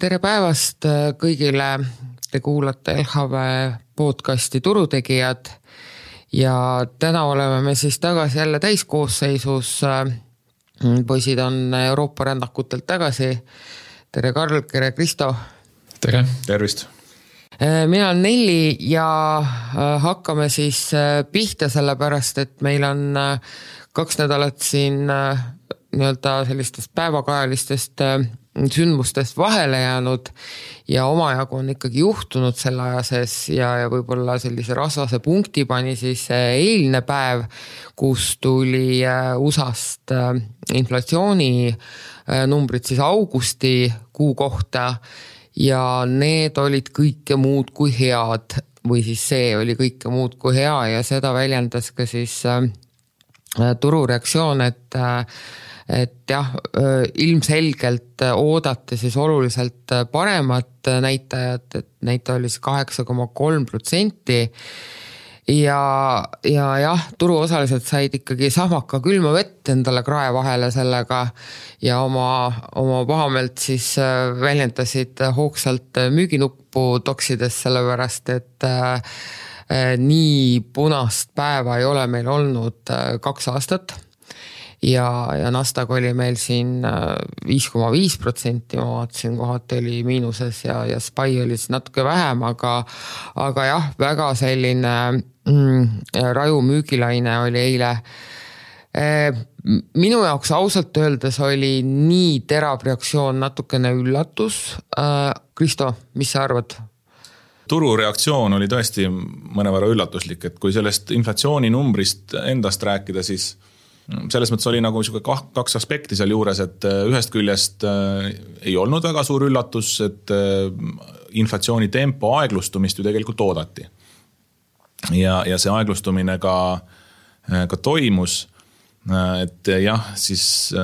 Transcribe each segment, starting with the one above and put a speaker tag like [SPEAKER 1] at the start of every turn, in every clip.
[SPEAKER 1] tere päevast kõigile, te kuulate LHV podcasti Turutegijad ja täna oleme me siis tagasi jälle täiskoosseisus. Poisid on Euroopa rändakutelt tagasi. Tere Karl, tere Kristo.
[SPEAKER 2] Tere.
[SPEAKER 3] Tervist.
[SPEAKER 1] Mina on Nelli ja hakkame siis pihta sellepärast, et meil on 2 nädalat siin nii-öelda sellistest päevakajalistest sündmustest vahele jäänud ja omajagu on ikkagi juhtunud selle aja sees ja võib-olla sellise rasvase punkti pani siis eilne päev, kus tuli USA-st inflatsiooni numbrid siis augusti kuu kohta ja need olid kõike muud kui head või siis see oli kõike muud kui hea ja seda väljendas ka siis turureaktsioon, et jah, ilmselgelt oodati siis oluliselt paremat näitajat, et näitaja oli 8,3% ja jah, turuosalised said ikkagi sahmaka külma vett endale krae vahele sellega ja oma pahameelt siis väljendasid hoogsalt müüginuppu toksides sellepärast, et nii punast päeva ei ole meil olnud 2 aastat ja Nasdaq oli meil siin 5,5%, ma vaatasin kohati oli miinuses ja SPY oli natuke vähem, aga jah, väga selline raju müügilaine oli eile. Minu jaoks ausalt öeldes oli nii terav reaktsioon natukene üllatus. Kristo, mis sa arvad?
[SPEAKER 3] Turureaktsioon oli tõesti mõnevõrra üllatuslik, et kui sellest inflatsiooni numbrist endast rääkida, siis selles mõttes oli nagu 2 aspekti seal juures, et ühest küljest ei olnud väga suur üllatus, et inflatsiooni tempo aeglustumist ju tegelikult oodati. Ja see aeglustumine ka toimus, et jah, siis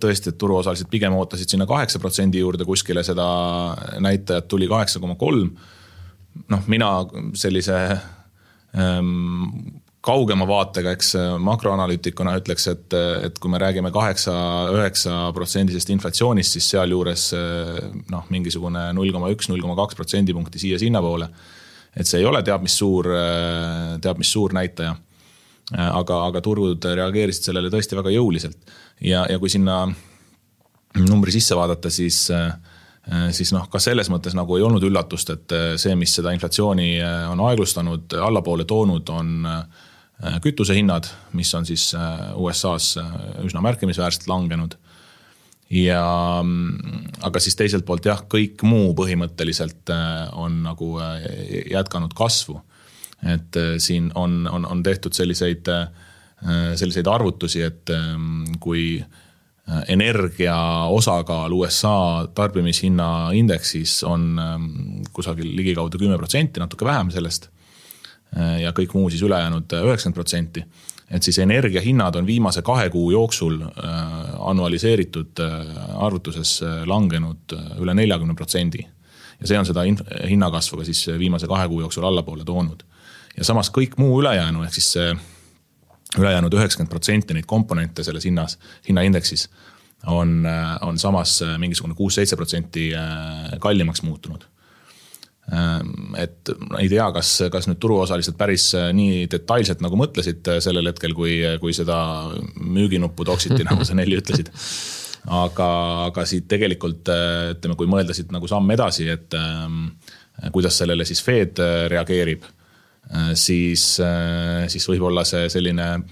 [SPEAKER 3] tõesti, et turuosalised pigem ootasid sinna 8% juurde kuskile, seda näitajat tuli 8,3%. Mina sellise kaugema vaatega, eks makroanalüütikuna ütleks, et kui me räägime 8-9% inflatsioonist, siis seal juures mingisugune 0,1-0,2% punkti siia sinna poole. Et see ei ole teab mis suur näitaja, aga turud reageerisid sellele tõesti väga jõuliselt. Ja kui sinna numbri sisse vaadata, siis ka selles mõttes nagu ei olnud üllatust, et see, mis seda inflatsiooni on aeglustanud, allapoole toonud, on kütusehinnad, mis on siis USA-s üsna märkimisväärselt langenud. Aga siis teiselt poolt jah, kõik muu põhimõtteliselt on nagu jätkanud kasvu. Et siin on tehtud selliseid arvutusi, et kui energia osakaal USA tarbimishinna indeksis on kusagil ligikaudu 10%, natuke vähem sellest ja kõik muu siis ülejäänud 90%. Et siis energiahinnad on viimase 2 kuu jooksul annualiseeritud arvutuses langenud üle 40%. Ja see on seda hinnakasvu ka siis viimase 2 kuu jooksul allapoole toonud. Ja samas kõik muu ülejäänu, ehk siis see ülejäänud 90% neid komponente selles hinnaindeksis on samas mingisugune 6-7% kallimaks muutunud. Et ei tea, kas nüüd turuosalised päris nii detailselt nagu mõtlesid sellel hetkel, kui seda müüginuppu toksiti, nagu sa Nelli ütlesid. Aga siit tegelikult, ütleme, kui mõeldasid nagu samm edasi, et kuidas sellele siis Fed reageerib, siis võib-olla see selline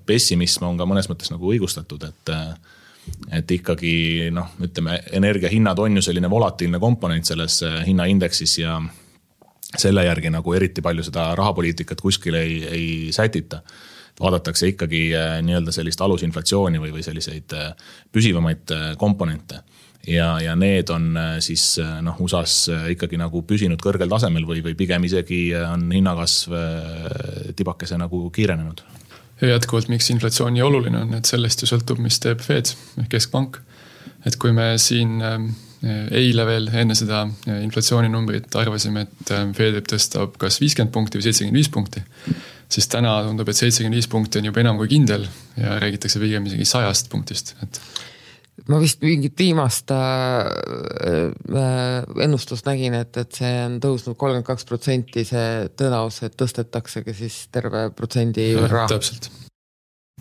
[SPEAKER 3] pessimism on ka mõnes mõttes nagu õigustatud, et ikkagi ütleme, energiahinnad on ju selline volatiilne komponent selles hinnaindeksis ja selle järgi nagu eriti palju seda rahapoliitikat kuskil ei sätita. Vaadatakse ikkagi nii-öelda sellist alusinflatsiooni või selliseid püsivamaid komponente. Ja need on siis USAs ikkagi nagu püsinud kõrgel tasemel või pigem isegi on hinnakasv tibakese nagu kiirenenud.
[SPEAKER 2] Ja jätkuvalt, miks inflatsiooni oluline on, et sellest ju sõltub, mis teeb Fed, keskpank. Et kui me siin eile veel enne seda inflatsiooninumbrit arvasime, et Fed tõstab kas 50 punkti või 75 punkti, siis täna tundub, et 75 punkti on juba enam kui kindel ja räägitakse pigem isegi 100 punktist.
[SPEAKER 1] ma vist mingit viimast ennustust nägin, et see on tõusnud 32%, see tõenäosus, et tõstetaksegi siis terve protsendi võrra.
[SPEAKER 2] Täpselt.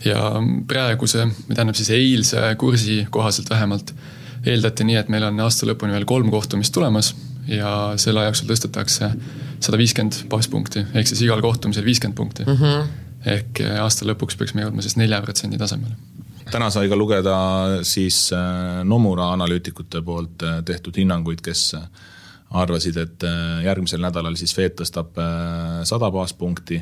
[SPEAKER 2] Ja praeguse, tähendab siis eilse kursi kohaselt vähemalt eeldati nii, et meil on aasta lõpuni veel 3 kohtumist tulemas ja selle ajaksul tõstetakse 150 baaspunkti, ehk siis igal kohtumisel 50 punkti. Ehk aasta lõpuks peaks me jõudma siis 4% tasemele.
[SPEAKER 3] Täna sai ka lugeda siis Nomura analüütikute poolt tehtud hinnanguid, kes arvasid, et järgmisel nädalal siis Fed tõstab 100 baaspunkti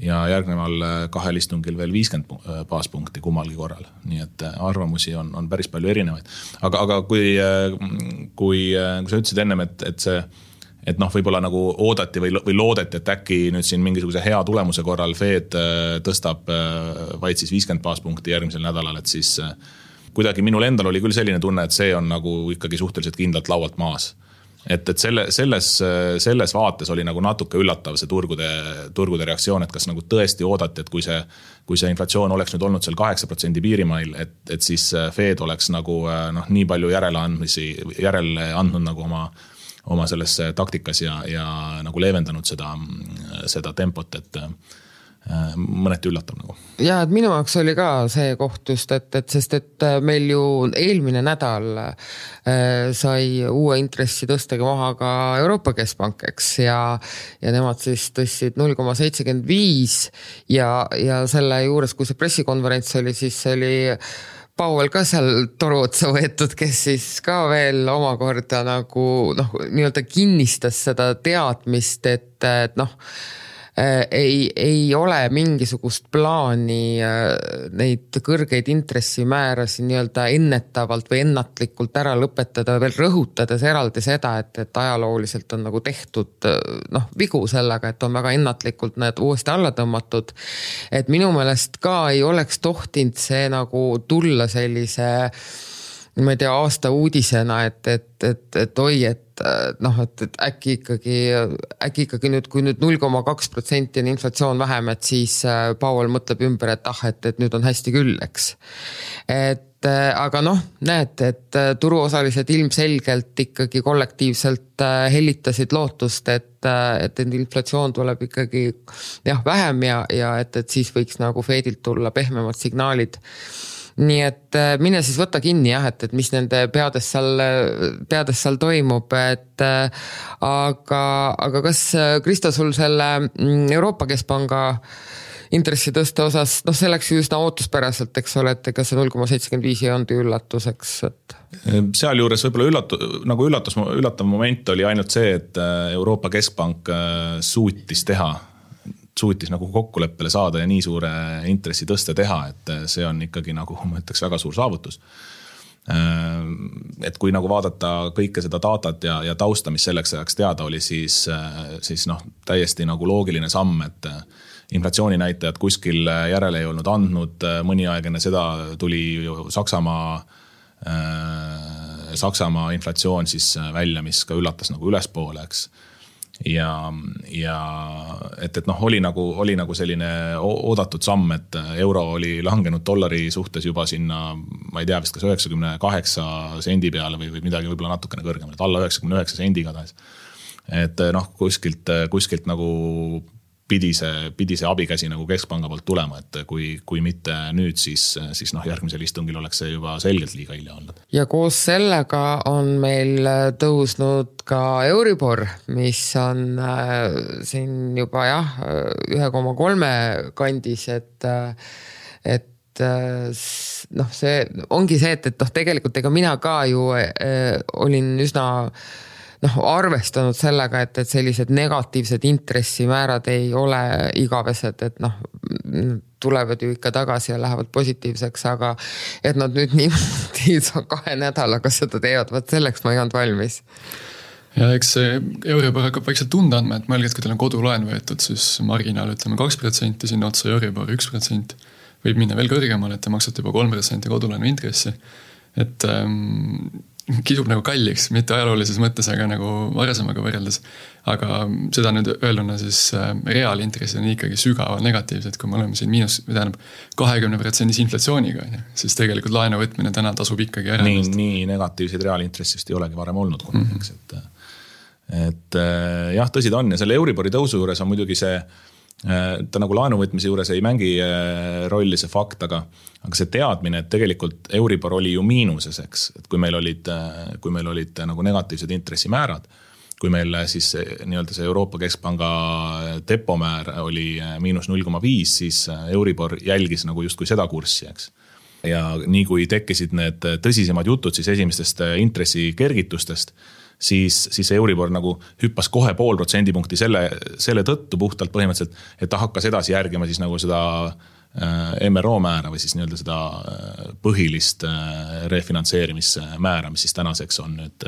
[SPEAKER 3] ja järgneval 2 istungil veel 50 baaspunkti kummalgi korral. Nii et arvamusi on päris palju erinevaid. Aga kui sa ütlesid ennem, et see võib-olla nagu oodati või loodeti, et äkki nüüd siin mingisuguse hea tulemuse korral Fed tõstab vaid siis 50 baaspunkti järgmisel nädalal, et siis kuidagi minul endal oli küll selline tunne, et see on nagu ikkagi suhteliselt kindlalt laualt maas. Et selles vaates oli nagu natuke üllatav see turgude reaktsioon, et kas nagu tõesti oodati, et kui see inflatsioon oleks nüüd olnud seal 8% piirimail, et siis Fed oleks nagu nii palju järele andnud nagu oma selles taktikas ja nagu leevendanud seda tempot, et mõneti üllatav nagu.
[SPEAKER 1] Ja, et minu jaoks oli ka see koht just, sest meil ju eelmine nädal sai uue intressi tõstega maha ka Euroopa Keskpank, eks, ja nemad siis tõstsid 0,75 ja selle juures, kui see pressikonverents oli, siis oli Powell ka seal toru otsa võetud, kes siis ka veel omakorda nagu nii-öelda kinnistas seda teadmist, et ei ole mingisugust plaani neid kõrgeid intressimäärasid nii-öelda ennetavalt või ennatlikult ära lõpetada, veel rõhutades eraldi seda, et ajalooliselt on nagu tehtud vigu sellega, et on väga ennatlikult need uuesti alla tõmmatud. Et minu meelest ka ei oleks tohtinud see nagu tulla sellise, ma ei tea, aasta uudisena, et oi, et äkki ikkagi nüüd, kui nüüd 0,2% on inflatsioon vähem, et siis Powell mõtleb ümber, et nüüd on hästi küll, eks. Aga näed, et turuosalised ilmselgelt ikkagi kollektiivselt hellitasid lootust, et inflatsioon tuleb ikkagi vähem ja et siis võiks nagu Fedilt tulla pehmemad signaalid. Nii et mine siis võtta kinni, et mis nende peades seal toimub, aga kas Kristo sul selle Euroopa Keskpanga intressi tõste osas, see läks ju üsna ootuspäraselt, eks ole, et ega see 0,75 ei olnud üllatuseks.
[SPEAKER 3] Seal juures võib-olla üllatav moment oli ainult see, et Euroopa Keskpank suutis nagu kokkuleppele saada ja nii suure intressi tõste teha, et see on ikkagi nagu, ma ütleks, väga suur saavutus. Et kui nagu vaadata kõike seda datat ja tausta, mis selleks ajaks teada oli, siis täiesti nagu loogiline samm, et inflatsiooninäitajad kuskil järele ei olnud andnud, mõni aeg enne seda tuli Saksamaa inflatsioon siis välja, mis ka üllatas nagu ülespoole, eks. Ja et oli nagu selline oodatud samm, et euro oli langenud dollari suhtes juba sinna, ma ei tea vist kas 98 sendi peale või midagi võib-olla natukene kõrgem, et alla 99 sendi igatahes. Et kuskilt nagu pidi see abikäsi nagu Keskpanga poolt tulema, et kui mitte nüüd, siis järgmisel istungil oleks see juba selgelt liiga hilja olnud.
[SPEAKER 1] Ja koos sellega on meil tõusnud ka Euribor, mis on siin juba 1,3 kandis, et see ongi see, et tegelikult ega mina ka ju olin üsna arvestanud sellega, et sellised negatiivsed intressimäärad ei ole igavesed, et tulevad ju ikka tagasi ja lähevad positiivseks, aga et nad nüüd niimoodi 2 nädalaga seda teevad, vaat selleks ma ei olnud valmis.
[SPEAKER 2] Ja eks see Euribor hakkab vaikselt tunda andma, et mõelge, et kui teil on kodulaen võetud, siis marginaal ütleme 2%, sinna otsa Euribor 1%, võib minna veel kõrgemale, et te maksate juba 3% kodulaenu intressi. Et kisub nagu kalliks, mitte ajaloolises mõttes, aga nagu varasemaga võrreldes. Aga seda nüüd öelduna siis reaalintressid on ikkagi sügavalt negatiivsed, kui me oleme siin 20% inflatsiooniga, siis tegelikult laenu võtmine täna tasub ikkagi ära.
[SPEAKER 3] Nii negatiivseid reaalintressist ei olegi varem olnud kunagi, et jah, tõsi ta on ja selle Euribori tõusu juures on muidugi see, ta nagu laenuvõtmise juures ei mängi rolli see fakt, aga see teadmine, et tegelikult Euribor oli ju miinuses, eks, et kui meil olid nagu negatiivsed intressimäärad, kui meil siis nii-öelda see Euroopa Keskpanga depomäär oli -0,5, siis Euribor jälgis nagu justkui seda kurssi, eks. Ja nii kui tekkisid need tõsisemad jutud siis esimestest intressi kergitustest, siis Euribor nagu hüppas kohe 0,5% selle tõttu puhtalt põhimõtteliselt, et ta hakkas edasi järgima siis nagu seda MRO määra või siis nii-öelda seda põhilist refinantseerimismäära, mis siis tänaseks on nüüd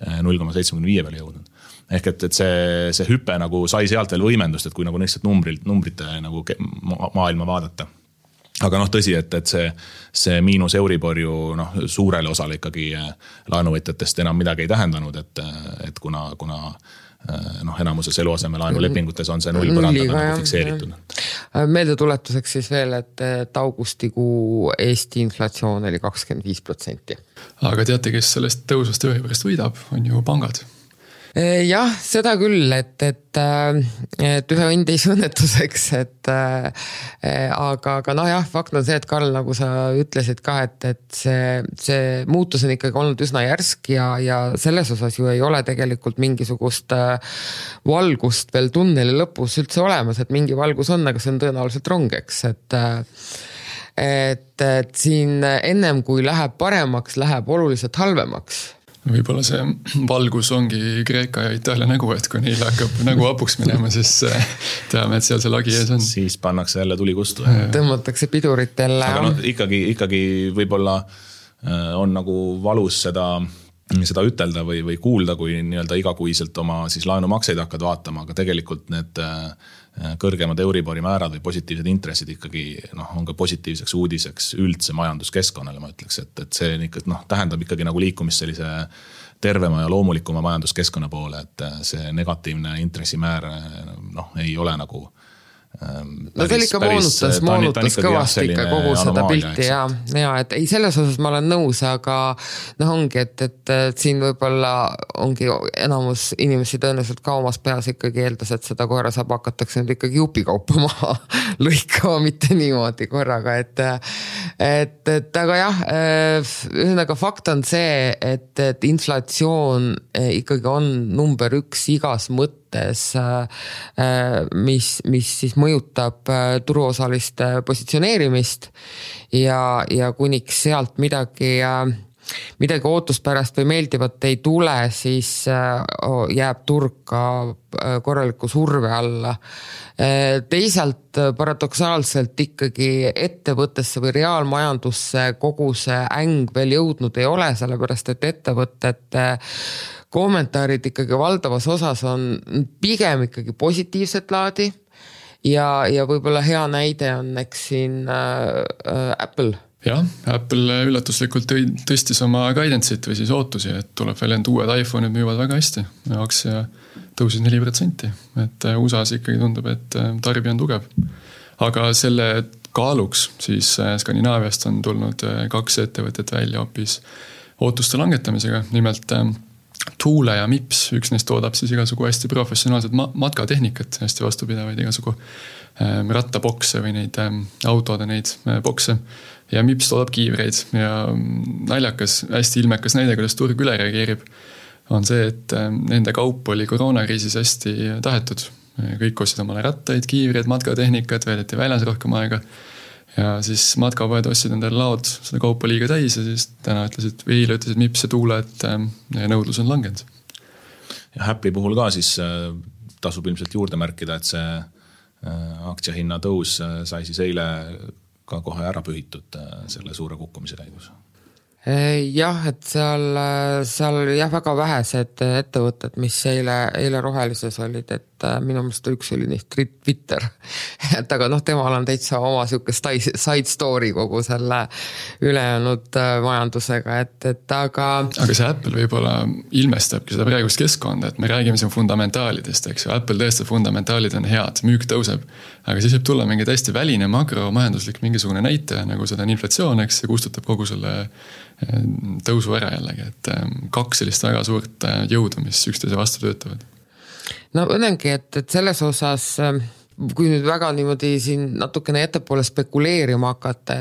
[SPEAKER 3] 0,75 peale jõudnud. Ehk et see hüpe nagu sai sealt veel võimendust, et kui nagu lihtsalt numbrite nagu maailma vaadata. Aga tõsi, et see miinus Euribor ju suurele osale ikkagi laenuvõtjatest enam midagi ei tähendanud, et kuna enamuses eluaseme laenulepingutes on see 0 põrandana nagu fikseeritud.
[SPEAKER 1] Meeldetuletuseks siis veel, et augustikuu Eesti inflatsioon oli 25%.
[SPEAKER 2] Aga teate, kes sellest tõusvast Euriborist võidab, on ju pangad.
[SPEAKER 1] Jah, seda küll, et ühe õnd ei õnnetuseks, aga jah, fakt on see, et Karl, nagu sa ütlesid ka, et see muutus on ikkagi olnud üsna järsk ja selles osas ju ei ole tegelikult mingisugust valgust veel tunneli lõpus üldse olemas, et mingi valgus on, aga see on tõenäoliselt rongeks, et siin ennem kui läheb paremaks, läheb oluliselt halvemaks.
[SPEAKER 2] Võib-olla see valgus ongi Kreeka ja Itaalia nägu, et kui neil hakkab nägu apuks minema, siis teame, et seal see lagi ees on.
[SPEAKER 3] Siis pannakse jälle tuli kustu.
[SPEAKER 1] Tõmmatakse piduritele.
[SPEAKER 3] Aga ikkagi võib-olla on nagu valus seda ütelda või kuulda, kui nii-öelda igakuiselt oma siis laenumakseid hakkad vaatama, aga tegelikult need kõrgemad Euribori määrad või positiivsed intressid ikkagi on ka positiivseks uudiseks üldse majanduskeskkonnale, ma ütleks, et see tähendab ikkagi nagu liikumist sellise tervema ja loomulikuma majanduskeskkonna poole, et see negatiivne intressimäär ei ole nagu
[SPEAKER 1] see ikka moonutas kõvasti ikka kogu seda pilti ja et ei, selles osas ma olen nõus, aga ongi, et siin võib-olla ongi enamus inimesi tõenäoliselt ka omas peas ikkagi eeldas, et seda koera saab hakatakse nüüd ikkagi jupikaupa maha lõikama, mitte niimoodi korraga, et aga jah, ühesõnaga fakt on see, et inflatsioon ikkagi on number 1 igas mõttes, mis siis mõjutab turuosaliste positsioneerimist ja kuniks sealt midagi ootuspärast või meeldivat ei tule, siis jääb turg ka korraliku surve alla. Teisalt paradoksaalselt ikkagi ettevõttesse või reaalmajandusse kogu see äng veel jõudnud ei ole, sellepärast et ettevõtete kommentaarid ikkagi valdavas osas on pigem ikkagi positiivset laadi ja võib-olla hea näide on eks siin Apple.
[SPEAKER 2] Jah, Apple üllatuslikult tõstis oma guidance'it või siis ootusi, et tuleb veel end uued iPhone'id müüvad väga hästi. Aktsia tõusis 4%, et USA-s ikkagi tundub, et tarbija on tugev. Aga selle kaaluks siis Skandinaaviast on tulnud 2 ettevõtet välja hoopis ootuste langetamisega, nimelt Tuule ja Mips, üks neist toodab siis igasugu hästi professionaalset matkatehnikat, hästi vastupidavaid igasugu rattabokse või neid autode neid bokse. Ja Mips toodab kiivreid ja naljakas, hästi ilmekas näide, kuidas turg üle reageerib, on see, et nende kaup oli koroonakriisis hästi tahetud. Kõik ostsid omale rattaid, kiivreid, matkatehnikat, veedeti väljas rohkem aega. Ja siis matkapoed ostsid endale laod seda kaupa liiga täis ja siis täna ütlesid Mips ja Tuule, et nõudlus on langenud.
[SPEAKER 3] Ja Apple'i puhul ka siis tasub ilmselt juurde märkida, et see aktsiahinna tõus sai siis eile ka kohe ära pühitud selle suure kukkumise käigus.
[SPEAKER 1] Jah, et seal oli väga vähesed ettevõtted, mis eile rohelises olid, et minu meelest üks oli neist Twitter. Et aga temal on täitsa oma siuke side story kogu selle ülejäänud majandusega, et aga
[SPEAKER 2] see Apple võib-olla ilmestabki seda praegust keskkonda, et me räägime siin fundamentaalidest, eks ju, Apple tõesti fundamentaalid on head, müük tõuseb, aga siis võib tulla mingi täiesti väline makromajanduslik mingisugune näitaja, nagu seda on inflatsioon, eks, ja kustutab kogu selle tõusu ära jällegi, et 2 sellist väga suurt jõudu, mis üksteise vastu töötavad.
[SPEAKER 1] No õnnengi, et selles osas, kui nüüd väga niimoodi siin natukene ettepoole spekuleerima hakata,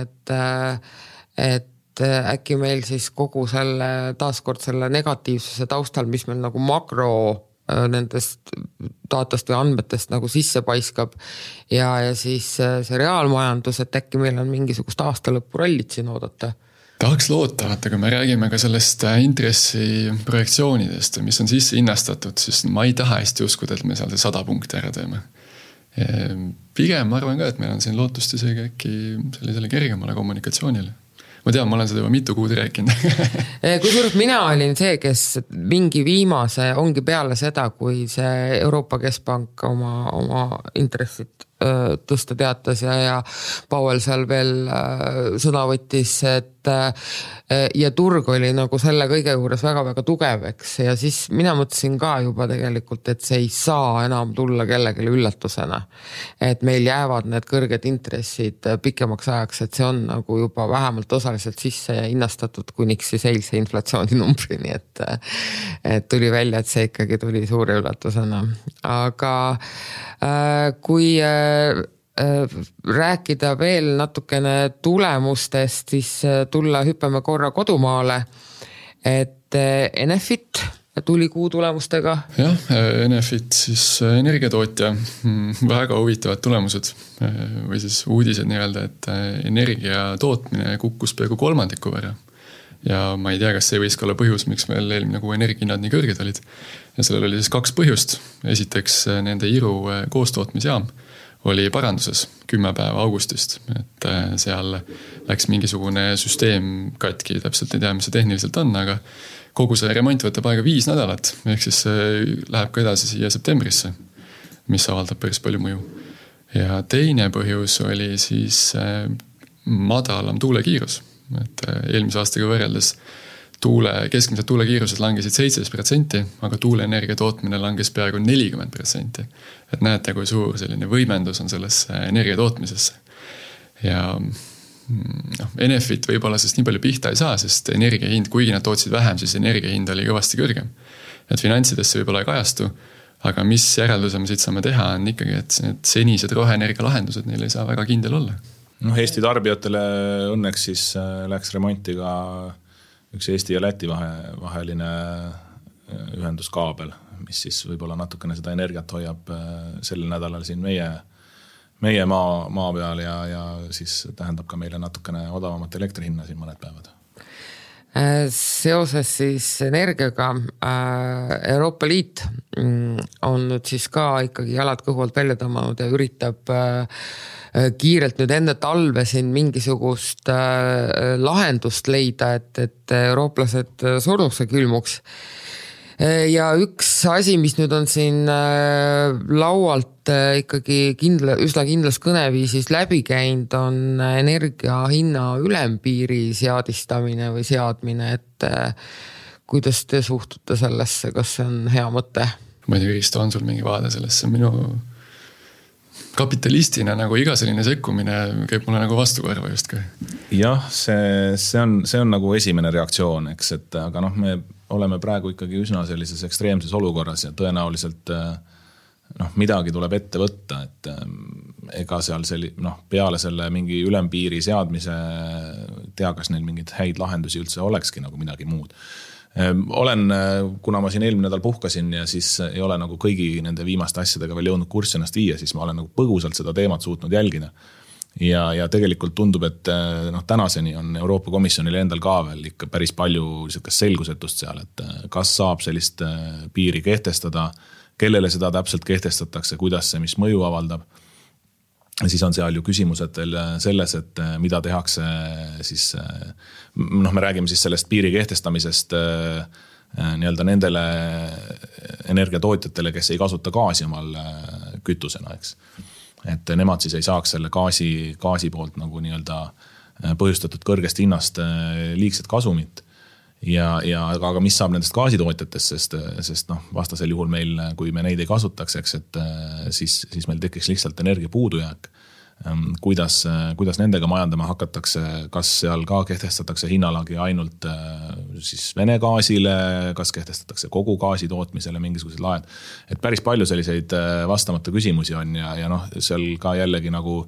[SPEAKER 1] et äkki meil siis kogu selle, taaskord selle negatiivsuse taustal, mis meil nagu makro nendest datast või andmetest nagu sisse paiskab ja siis see reaalmajandus, et äkki meil on mingisugust aastalõppu rallit siin oodata.
[SPEAKER 2] Tahaks loota, vaata, kui me räägime ka sellest intressi projektsioonidest, mis on sisse hinnastatud, siis ma ei taha hästi uskuda, et me seal 100 punkti ära teeme. Pigem ma arvan ka, et meil on siin lootust isegi äkki sellisele kergemale kommunikatsioonile. Ma tean, ma olen seda juba mitu kuud rääkinud.
[SPEAKER 1] Kusjuures mina olin see, kes mingi viimase ongi peale seda, kui see Euroopa Keskpank oma intressit tõsta teatas ja Powell seal veel sõna võttis, et ja turg oli nagu selle kõige juures väga-väga tugev, eks, ja siis mina mõtlesin ka juba tegelikult, et see ei saa enam tulla kellelegi üllatusena, et meil jäävad need kõrged intressid pikemaks ajaks, et see on nagu juba vähemalt osaliselt sisse hinnastatud kuniks siis eilse inflatsiooninumbrini, et tuli välja, et see ikkagi tuli suure üllatusena, aga kui rääkida veel natukene tulemustest, siis hüppame korra kodumaale, et Enefit tuli kuu tulemustega.
[SPEAKER 2] Jah, Enefit siis energiatootja, väga huvitavad tulemused või siis uudised nii-öelda, et energia tootmine kukkus peaaegu 3% võrra. Ja ma ei tea, kas see võis ka olla põhjus, miks meil eelmine kuu energiahinnad nii kõrged olid. Ja sellel oli siis 2 põhjust. Esiteks nende Iru koostootmisjaam oli paranduses 10 päeva augustist, et seal läks mingisugune süsteem katki, täpselt ei tea, mis see tehniliselt on, aga kogu see remont võtab aega 5 nädalat, ehk siis läheb ka edasi siia septembrisse, mis avaldab päris palju mõju. Ja teine põhjus oli siis madalam tuulekiirus, et eelmise aastaga võrreldes keskmised tuulekiirused langesid 17%, aga tuuleenergia tootmine langes peaaegu 40%. Et näete, kui suur selline võimendus on sellesse energia tootmisesse. Ja Enefit võib-olla sest nii palju pihta ei saa, sest energiahind, kuigi nad tootsid vähem, siis energiahind oli kõvasti kõrgem. Et finantsidesse võib-olla ei kajastu, aga mis järelduse me siit saame teha, on ikkagi, et need senised roheenergia lahendused neil ei saa väga kindel olla.
[SPEAKER 3] Eesti tarbijatele õnneks siis läks remonti ka üks Eesti ja Läti vaheline ühenduskaabel, mis siis võib-olla natukene seda energiat hoiab sel nädalal siin meie maa peal ja siis tähendab ka meile natukene odavamat elektrihinna siin mõned päevad.
[SPEAKER 1] Seoses siis energiaga Euroopa Liit on nüüd siis ka ikkagi jalad kõhult välja tõmmanud ja üritab kiirelt nüüd enne talve siin mingisugust lahendust leida, et eurooplased surnuks ja külmuks. Ja üks asi, mis nüüd on siin laualt ikkagi üsna kindlas kõneviisis läbi käinud, on energia hinna ülempiiri seadistamine või seadmine, et kuidas te suhtute sellesse, kas see on hea mõte?
[SPEAKER 2] Ma ei tea, Kristo, on sul mingi vaade sellesse? Minu kapitalistina nagu iga selline sekkumine käib mulle nagu vastukorva just ka.
[SPEAKER 3] Jah, see on nagu esimene reaktsioon, eks, et aga me oleme praegu ikkagi üsna sellises ekstreemses olukorras ja tõenäoliselt midagi tuleb ette võtta, et ega seal peale selle mingi ülempiiri seadmise tea, kas neil mingid häid lahendusi üldse olekski nagu midagi muud. Kuna ma siin eelmine nädal puhkasin ja siis ei ole nagu kõigi nende viimaste asjadega veel jõudnud kurssi ennast viia, siis ma olen nagu põgusalt seda teemat suutnud jälgida. Ja tegelikult tundub, et tänaseni on Euroopa Komisjonil endal ka veel ikka päris palju selgusetust seal, et kas saab sellist piiri kehtestada, kellele seda täpselt kehtestatakse, kuidas see, mis mõju avaldab. Siis on seal ju küsimused veel selles, et mida tehakse siis, me räägime siis sellest piiri kehtestamisest nii-öelda nendele energiatootjatele, kes ei kasuta gaasi omal kütusena, eks. Et nemad siis ei saaks selle gaasi poolt nagu nii-öelda põhjustatud kõrgest hinnast liigset kasumit. Aga mis saab nendest gaasitootjatest, sest vastasel juhul meil, kui me neid ei kasutaks, eks, et siis meil tekiks lihtsalt energia puudujääk. Kuidas nendega majandama hakatakse, kas seal ka kehtestatakse hinnalagi ainult siis Vene gaasile, kas kehtestatakse kogu gaasi tootmisele mingisugused laed. Et päris palju selliseid vastamata küsimusi on ja seal ka jällegi nagu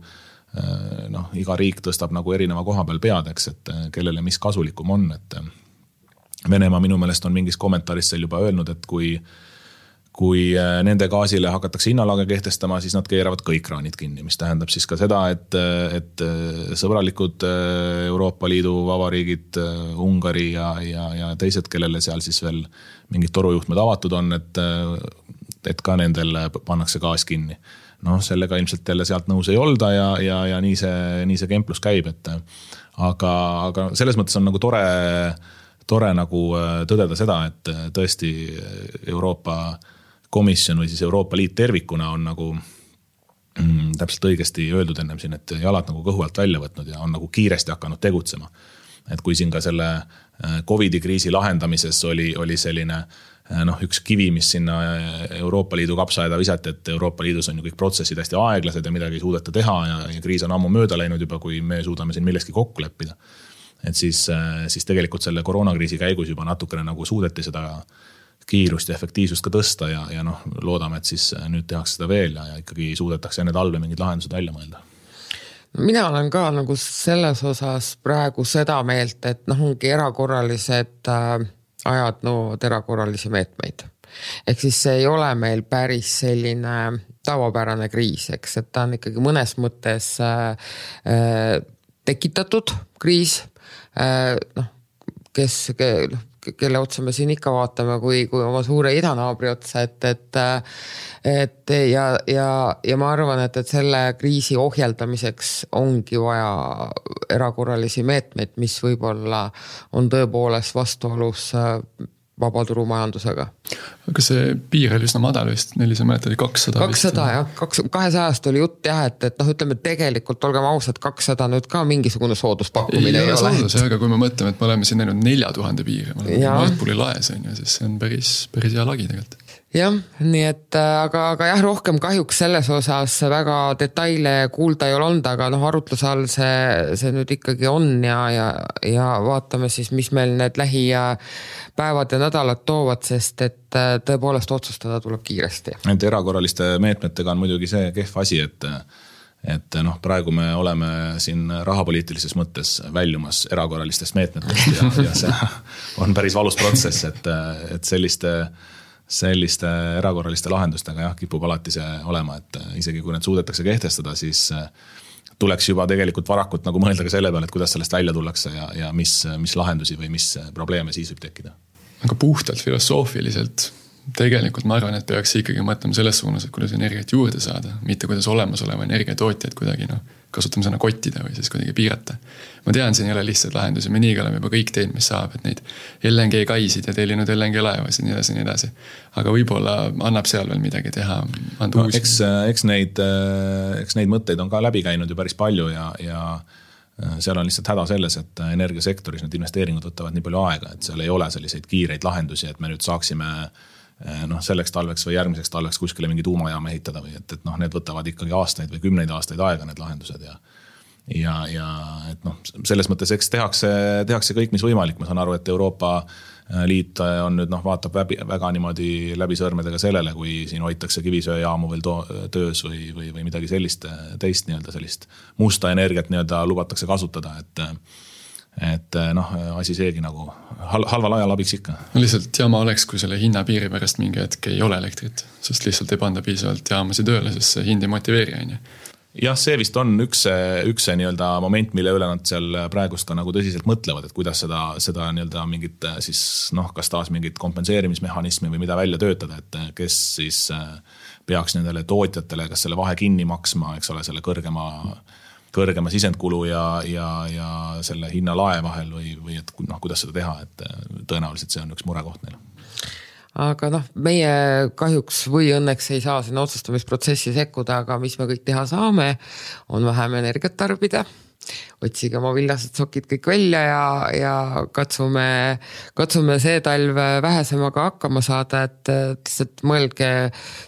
[SPEAKER 3] iga riik tõstab nagu erineva koha peal peadeks, et kellele mis kasulikum on, et Venemaa minu meelest on mingis kommentaaris seal juba öelnud, et kui nende gaasile hakatakse hinnalage kehtestama, siis nad keeravad kõik kraanid kinni, mis tähendab siis ka seda, et sõbralikud Euroopa Liidu vabariigid, Ungari ja teised, kellele seal siis veel mingid torujuhtmed avatud on, et ka nendel pannakse gaas kinni. Sellega ilmselt jälle sealt nõus ei olda ja nii see kemplus käib, aga selles mõttes on nagu tore nagu tõdeda seda, et tõesti Euroopa Komisjon või siis Euroopa Liit tervikuna on nagu täpselt õigesti öeldud ennem siin, et jalad nagu kõhu alt välja võtnud ja on nagu kiiresti hakanud tegutsema. Et kui siin ka selle COVID-i kriisi lahendamises oli selline üks kivi, mis sinna Euroopa Liidu kapsaaeda visati, et Euroopa Liidus on ju kõik protsessid hästi aeglased ja midagi ei suudeta teha ja kriis on ammu mööda läinud juba, kui me suudame siin milleski kokku leppida. Et siis tegelikult selle koroonakriisi käigus juba natukene nagu suudeti seda kiirust ja efektiivsust ka tõsta ja loodame, et siis nüüd tehakse seda veel ja ikkagi suudetakse enne talve mingid lahendused välja mõelda.
[SPEAKER 1] Mina olen ka nagu selles osas praegu seda meelt, et ongi erakorralised ajad nõuavad erakorralisi meetmeid. Ehk siis see ei ole meil päris selline tavapärane kriis, eks, et ta on ikkagi mõnes mõttes tekitatud kriis, kelle otsa me siin ikka vaatame, kui oma suure idanaabri otsa, ja ma arvan, et selle kriisi ohjeldamiseks ongi vaja erakorralisi meetmeid, mis võib-olla on tõepoolest vastuolus vabaturumajandusega.
[SPEAKER 2] Aga see piir oli üsna madal vist, 400 oli 200.
[SPEAKER 1] 200 jah, 200 oli jutt jah, et ütleme tegelikult, olgem ausad, 200 nüüd ka mingisugune sooduspakkumine ei ole.
[SPEAKER 2] Aga kui me mõtleme, et me oleme siin näinud 4000 piiri, me oleme Nordpooli laes, siis see on päris hea lagi tegelikult.
[SPEAKER 1] Jah, nii et aga jah, rohkem kahjuks selles osas väga detaile kuulda ei ole olnud, aga arutluse all see nüüd ikkagi on ja vaatame siis, mis meil need lähipäevad ja nädalad toovad, sest et tõepoolest otsustada tuleb kiiresti.
[SPEAKER 3] Et erakorraliste meetmetega on muidugi see kehv asi, et praegu me oleme siin rahapoliitilises mõttes väljumas erakorralistest meetmetest ja see on päris valus protsess, et selliste erakorraliste lahendustega jah, kipub alati see olema, et isegi kui need suudetakse kehtestada, siis tuleks juba tegelikult varakult nagu mõelda ka selle peale, et kuidas sellest välja tullakse ja mis lahendusi või mis probleeme siis võib tekkida.
[SPEAKER 2] Aga puhtalt filosoofiliselt tegelikult ma arvan, et peaks ikkagi mõtlema selles suunas, et kuidas energiat juurde saada, mitte kuidas olemasoleva energiatootjaid kuidagi kasutame sõna kottida või siis kuidagi piirata. Ma tean, siin ei ole lihtsalt lahendusi, me nii oleme juba kõik teed, mis saab, et neid LNG kaisid ja tellinud LNG laevasid nii edasi. Aga võib-olla annab seal veel midagi teha.
[SPEAKER 3] Eks neid mõtteid on ka läbi käinud ju päris palju ja seal on lihtsalt häda selles, et energiasektoris need investeeringud võtavad nii palju aega, et seal ei ole selliseid kiireid lahendusi, et me nüüd saaksime selleks talveks või järgmiseks talveks kuskile mingi tuumajaama ehitada või et need võtavad ikkagi aastaid või 10 aastaid aega need lahendused ja et selles mõttes eks tehakse kõik, mis võimalik. Ma saan aru, et Euroopa Liit on nüüd vaatab väga niimoodi läbi sõrmedega sellele, kui siin hoitakse kivisöejaamu veel töös või midagi sellist teist sellist musta energiat lubatakse kasutada, et asi seegi nagu halval ajal abiks ikka.
[SPEAKER 2] Lihtsalt jaama oleks, kui selle hinnapiiri pärast mingi hetk ei ole elektrit, sest lihtsalt ei panda piisavalt jaamasi tööle, sest see hind ei motiveeri.
[SPEAKER 3] Jah, see vist on üks moment, mille üle nad seal praegust ka nagu tõsiselt mõtlevad, et kuidas seda mingit siis kas taas mingit kompenseerimismehhanismi või mida välja töötada, et kes siis peaks nendele tootjatele kas selle vahe kinni maksma, eks ole, selle kõrgema sisendkulu ja selle hinna lae vahel või et kuidas seda teha, et tõenäoliselt see on üks murekoht neil.
[SPEAKER 1] aga meie kahjuks või õnneks ei saa sinna otsustamisprotsessi sekkuda, aga mis me kõik teha saame, on vähem energiat tarbida. Otsige oma villased sokid kõik välja ja katsume see talv vähesemaga hakkama saada, et lihtsalt mõelge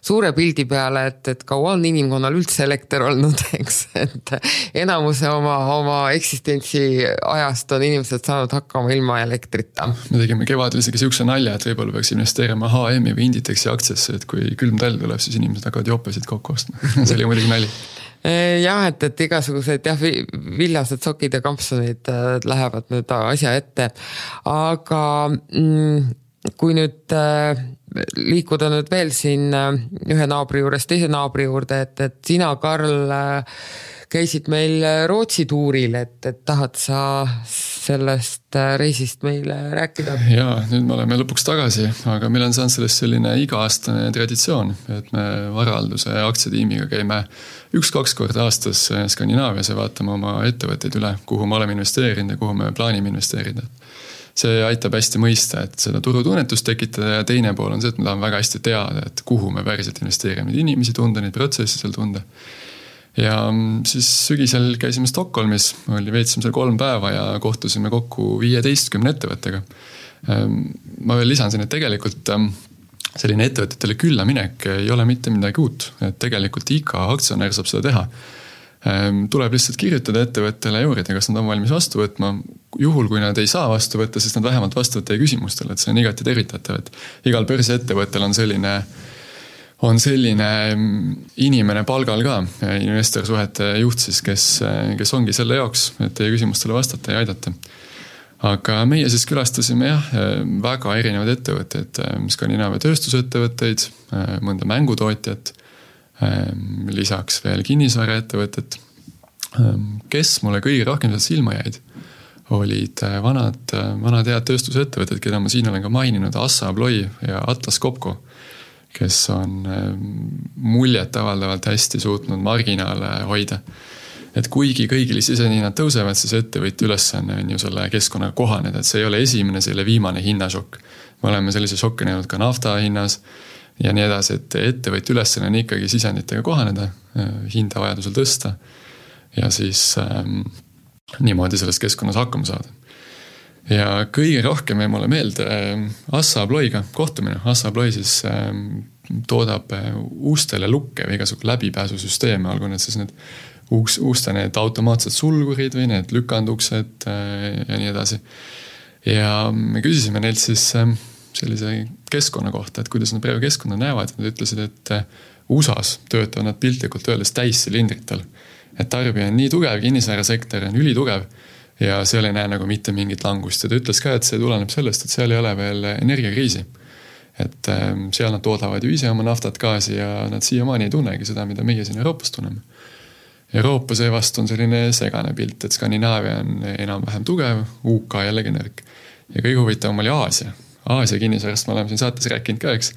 [SPEAKER 1] suure pildi peale, et kaua on inimkonnal üldse elekter olnud, eks, et enamuse oma eksistentsi ajast on inimesed saanud hakkama ilma elektrita.
[SPEAKER 2] Me tegime kevadel isegi siukse nalja, et võib-olla peaks investeerima HM-i või Inditexi aktsiasse, et kui külm talv tuleb, siis inimesed hakkavad jopesid kokku ostma. See oli muidugi nali.
[SPEAKER 1] Jah, et igasugused villased sokid ja kampsunid lähevad nüüd asja ette, aga kui nüüd liikuda nüüd veel siin ühe naabri juures teise naabri juurde, et sina, Karl, käisid meil Rootsi tuuril, et tahad sa sellest reisist meile rääkida?
[SPEAKER 2] Jaa, nüüd me oleme lõpuks tagasi, aga meil on saanud sellest selline iga-aastane traditsioon, et me varahalduse aktsiatiimiga käime 1-2 korda aastas Skandinaavias ja vaatame oma ettevõtteid üle, kuhu me oleme investeerinud ja kuhu me plaanime investeerida. See aitab hästi mõista, et seda turutunnetust tekitada ja teine pool on see, et me tahame väga hästi teada, et kuhu me päriselt investeerime, neid inimesi tunda, neid protsessi seal tunda. Ja siis sügisel käisime Stockholmis, veetsime seal 3 päeva ja kohtusime kokku 15 ettevõttega. Ma veel lisan siin, et tegelikult selline ettevõtetele külla minek ei ole mitte midagi uut, et tegelikult iga aktsionär saab seda teha. Tuleb lihtsalt kirjutada ettevõttele ja uurida, kas nad on valmis vastu võtma. Juhul, kui nad ei saa vastu võtta, siis nad vähemalt vastu võtta küsimustele, et see on igati tervitatav, et igal börsiettevõttel on selline inimene palgal ka, investorsuhete juht siis, kes ongi selle jaoks, et teie küsimustele vastata ja aidata. Aga meie siis külastasime väga erinevad ettevõtteid, Skandinaavia tööstusettevõtteid, mõnda mängutootjat, lisaks veel kinnisvaraettevõtted. Kes mulle kõige rohkem sealt silma jäid, olid vanad head tööstusettevõtted, keda ma siin olen ka maininud, Assa Abloy ja Atlas Copco, kes on muljet avaldavalt hästi suutnud marginaale hoida. Et kuigi kõigil sisehinnad tõusevad, siis ettevõtja ülesanne on ju selle keskkonnaga kohaneda, et see ei ole esimene, see ei ole viimane hinnašokk. Me oleme sellise šokke näinud ka nafta hinnas ja nii edasi, et ettevõtja ülesanne on ikkagi sisenditega kohaneda, hinda vajadusel tõsta ja siis niimoodi selles keskkonnas hakkama saada. Ja kõige rohkem jäi mulle meelde Assa Abloyga kohtumine. Assa Abloy siis toodab uustele lukke või igasugu läbipääsusüsteeme, olgu need siis need uuste need automaatsed sulgurid või need lükanduksed ja nii edasi. Ja me küsisime neilt siis sellise keskkonna kohta, et kuidas nad praegu keskkonna näevad. Nad ütlesid, et USAs töötavad nad piltlikult öeldes täissilindritel. Et tarbija on nii tugev, kinnisvarasektor on ülitugev ja seal ei näe nagu mitte mingit langust. Ja ta ütles ka, et see tuleneb sellest, et seal ei ole veel energiakriisi. Et seal nad toodavad ju ise oma naftat gaasi ja nad siiamaani ei tunnegi seda, mida meie siin Euroopas tunneme. Euroopa seevast on selline segane pilt, et Skandinaavia on enam-vähem tugev, UK jällegi nõrk. Ja kõige huvitavam oli Aasia. Aasia kinnisvarast me oleme siin saates rääkinud ka, eks.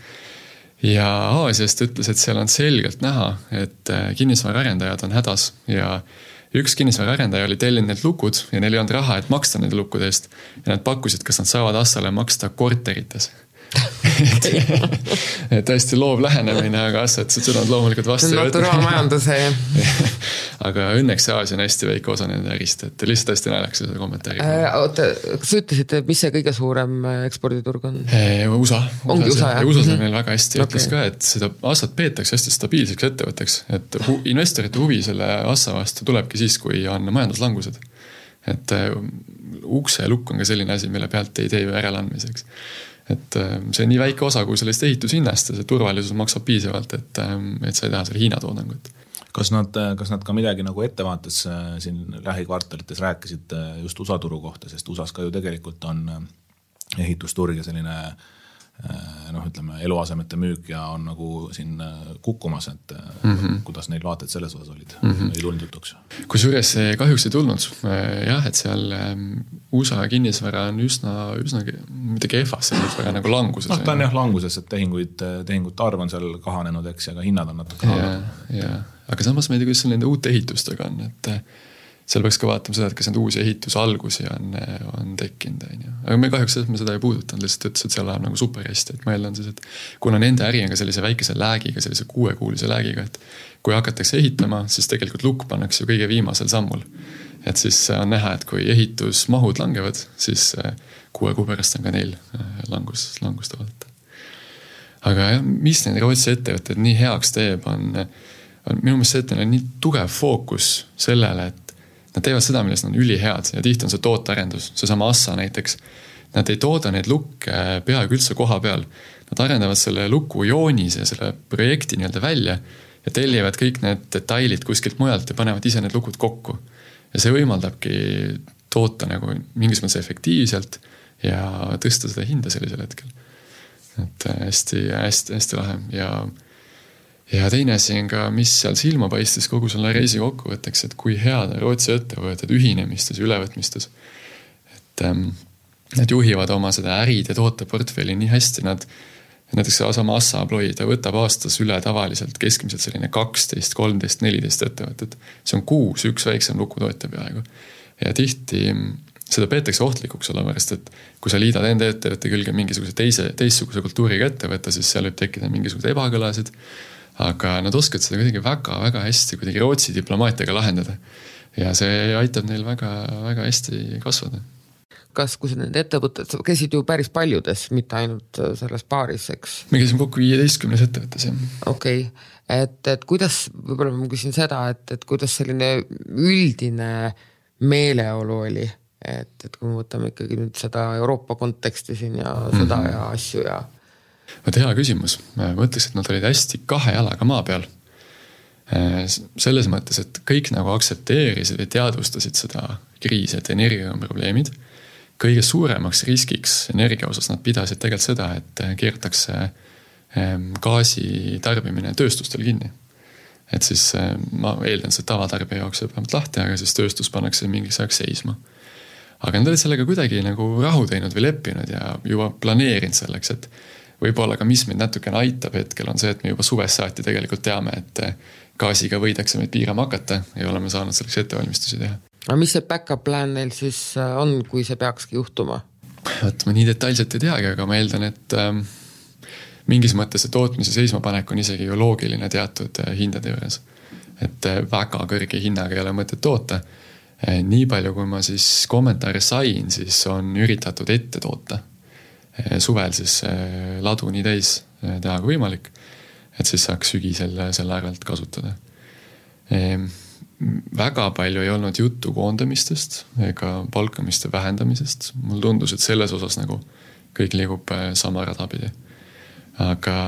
[SPEAKER 2] Ja Aasiast ütles, et seal on selgelt näha, et kinnisvaraarendajad on hädas ja üks kinnisvararendaja oli tellinud need lukud ja neil ei olnud raha, et maksta nende lukkude eest ja nad pakkusid, kas nad saavad Assale maksta korterites. et hästi loov lähenemine, aga Assa, et seda on loomulikult vastu.
[SPEAKER 1] Naturaalmajanduse.
[SPEAKER 2] aga õnneks see Aasia on hästi väike osa nende ärist, et lihtsalt hästi naljaks seda kommentaari.
[SPEAKER 1] Oota, kas sa ütlesid, mis see kõige suurem eksporditurg on?
[SPEAKER 2] USA.
[SPEAKER 1] Ongi USA, jah?
[SPEAKER 2] USA on meil väga hästi. Ütles ka, et seda Assat peetakse hästi stabiilseks ettevõtteks, et investorite huvi selle Assa vastu tulebki siis, kui on majanduslangused. Et ukse lukk on ka selline asi, mille pealt ei tee äralandmiseks. Et see on nii väike osa, kui sellest ehitushinnast ja see turvalisus maksab piisavalt, et sa ei taha selle Hiina toodangut.
[SPEAKER 3] Kas nad ka midagi nagu ettevaates siin lähikvartalites rääkisid just USA turu kohta, sest USAs ka ju tegelikult on ehitusturg ja selline ütleme, eluasemete müük ja on nagu siin kukkumas, et kuidas neil vaated selles osas olid, ei tulnud jutuks.
[SPEAKER 2] Kusjuures see kahjuks ei tulnud. Jah, et seal USA kinnisvara on üsna mitte kehvas, see väga nagu languses.
[SPEAKER 3] Ta on jah languses, et tehingute arv on seal kahanenud, eks, ja ka hinnad on natuke
[SPEAKER 2] kahanenud. Aga samas ma ei tea, kuidas nende uute ehitustega on, et seal peaks ka vaatama seda, et kas need uusi ehitusalgusi on tekkinud, aga me kahjuks seda ei puudutanud, lihtsalt ütles, et seal läheb nagu super hästi, et ma eeldan siis, et kuna nende äri on ka sellise väikese läägiga, sellise 6-kuulise läägiga, et kui hakatakse ehitama, siis tegelikult lukk pannakse ju kõige viimasel sammul. Et siis on näha, et kui ehitusmahud langevad, siis 6 kuu pärast on ka neil langust vaadata. Aga jah, mis need Rootsi ettevõtted nii heaks teeb, on minu meelest see, et neil on nii tugev fookus sellele, et nad teevad seda, milles nad on ülihead ja tihti on see tootearendus, see sama Assa näiteks. Nad ei tooda neid lukke peaaegu üldse koha peal. Nad arendavad selle luku joonis ja selle projekti nii-öelda välja ja tellivad kõik need detailid kuskilt mujalt ja panevad ise need lukud kokku. Ja see võimaldabki toota nagu mingis mõttes efektiivselt ja tõsta seda hinda sellisel hetkel. Et hästi lahe ja teine asi on ka, mis seal silma paistis kogu selle reisi kokkuvõtteks, et kui head Rootsi ettevõtted ühinemistes ja ülevõtmistes. Et nad juhivad oma seda ärid ja tooteportfelli nii hästi, näiteks sama Assa Abloy, ta võtab aastas üle tavaliselt keskmiselt selline 12, 13, 14 ettevõtted. See on 6, üks väiksem lukutootja peaaegu. Ja tihti seda peetakse ohtlikuks olevarast, et kui sa liidad enda ettevõtte külge mingisuguse teistsuguse kultuuriga ettevõtte, siis seal võib tekkida mingisugused ebakõlasid. Aga nad oskavad seda kuidagi väga hästi kuidagi Rootsi diplomaatiaga lahendada. Ja see aitab neil väga hästi kasvada.
[SPEAKER 1] Kas kui need ettevõtted, käisid ju päris paljudes, mitte ainult selles paaris, eks?
[SPEAKER 2] Me käisime kokku 15 ettevõttes, jah.
[SPEAKER 1] Okei. Et kuidas, võib-olla ma küsin seda, et kuidas selline üldine meeleolu oli? Et kui me võtame ikkagi nüüd seda Euroopa konteksti siin ja sõda ja asju ja...
[SPEAKER 2] Hea küsimus. Ma mõtleks, et nad olid hästi 2 jalaga maa peal. Selles mõttes, et kõik nagu aktsepteerisid või teadvustasid seda kriisi, et energia on probleemid. Kõige suuremaks riskiks energia osas nad pidasid tegelikult seda, et keertakse gaasi tarbimine tööstustel kinni. Et siis ma eeldan, see tavatarbija jaoks jääb vähemalt lahti, aga siis tööstus pannakse mingis ajaks seisma. Aga nad olid sellega kuidagi nagu rahu teinud või leppinud ja juba planeerinud selleks, et võib-olla ka mis meid natukene aitab hetkel on see, et me juba suvest saati tegelikult teame, et gaasiga võidakse meid piirama hakata ja oleme saanud selleks ettevalmistusi teha.
[SPEAKER 1] Aga mis see backup plan neil siis on, kui see peakski juhtuma?
[SPEAKER 2] Ma nii detailselt ei teagi, aga ma eeldan, et mingis mõttes see tootmise seismapanek on isegi ju loogiline teatud hindade juures. Et väga kõrge hinnaga ei ole mõtet toota. Nii palju, kui ma siis kommentaare sain, siis on üritatud ette toota. Suvel siis ladu nii täis teha kui võimalik, et siis saaks sügisel selle arvelt kasutada. Väga palju ei olnud juttu koondamistest ega palkamiste vähendamisest. Mul tundus, et selles osas nagu kõik liigub sama radapidi. Aga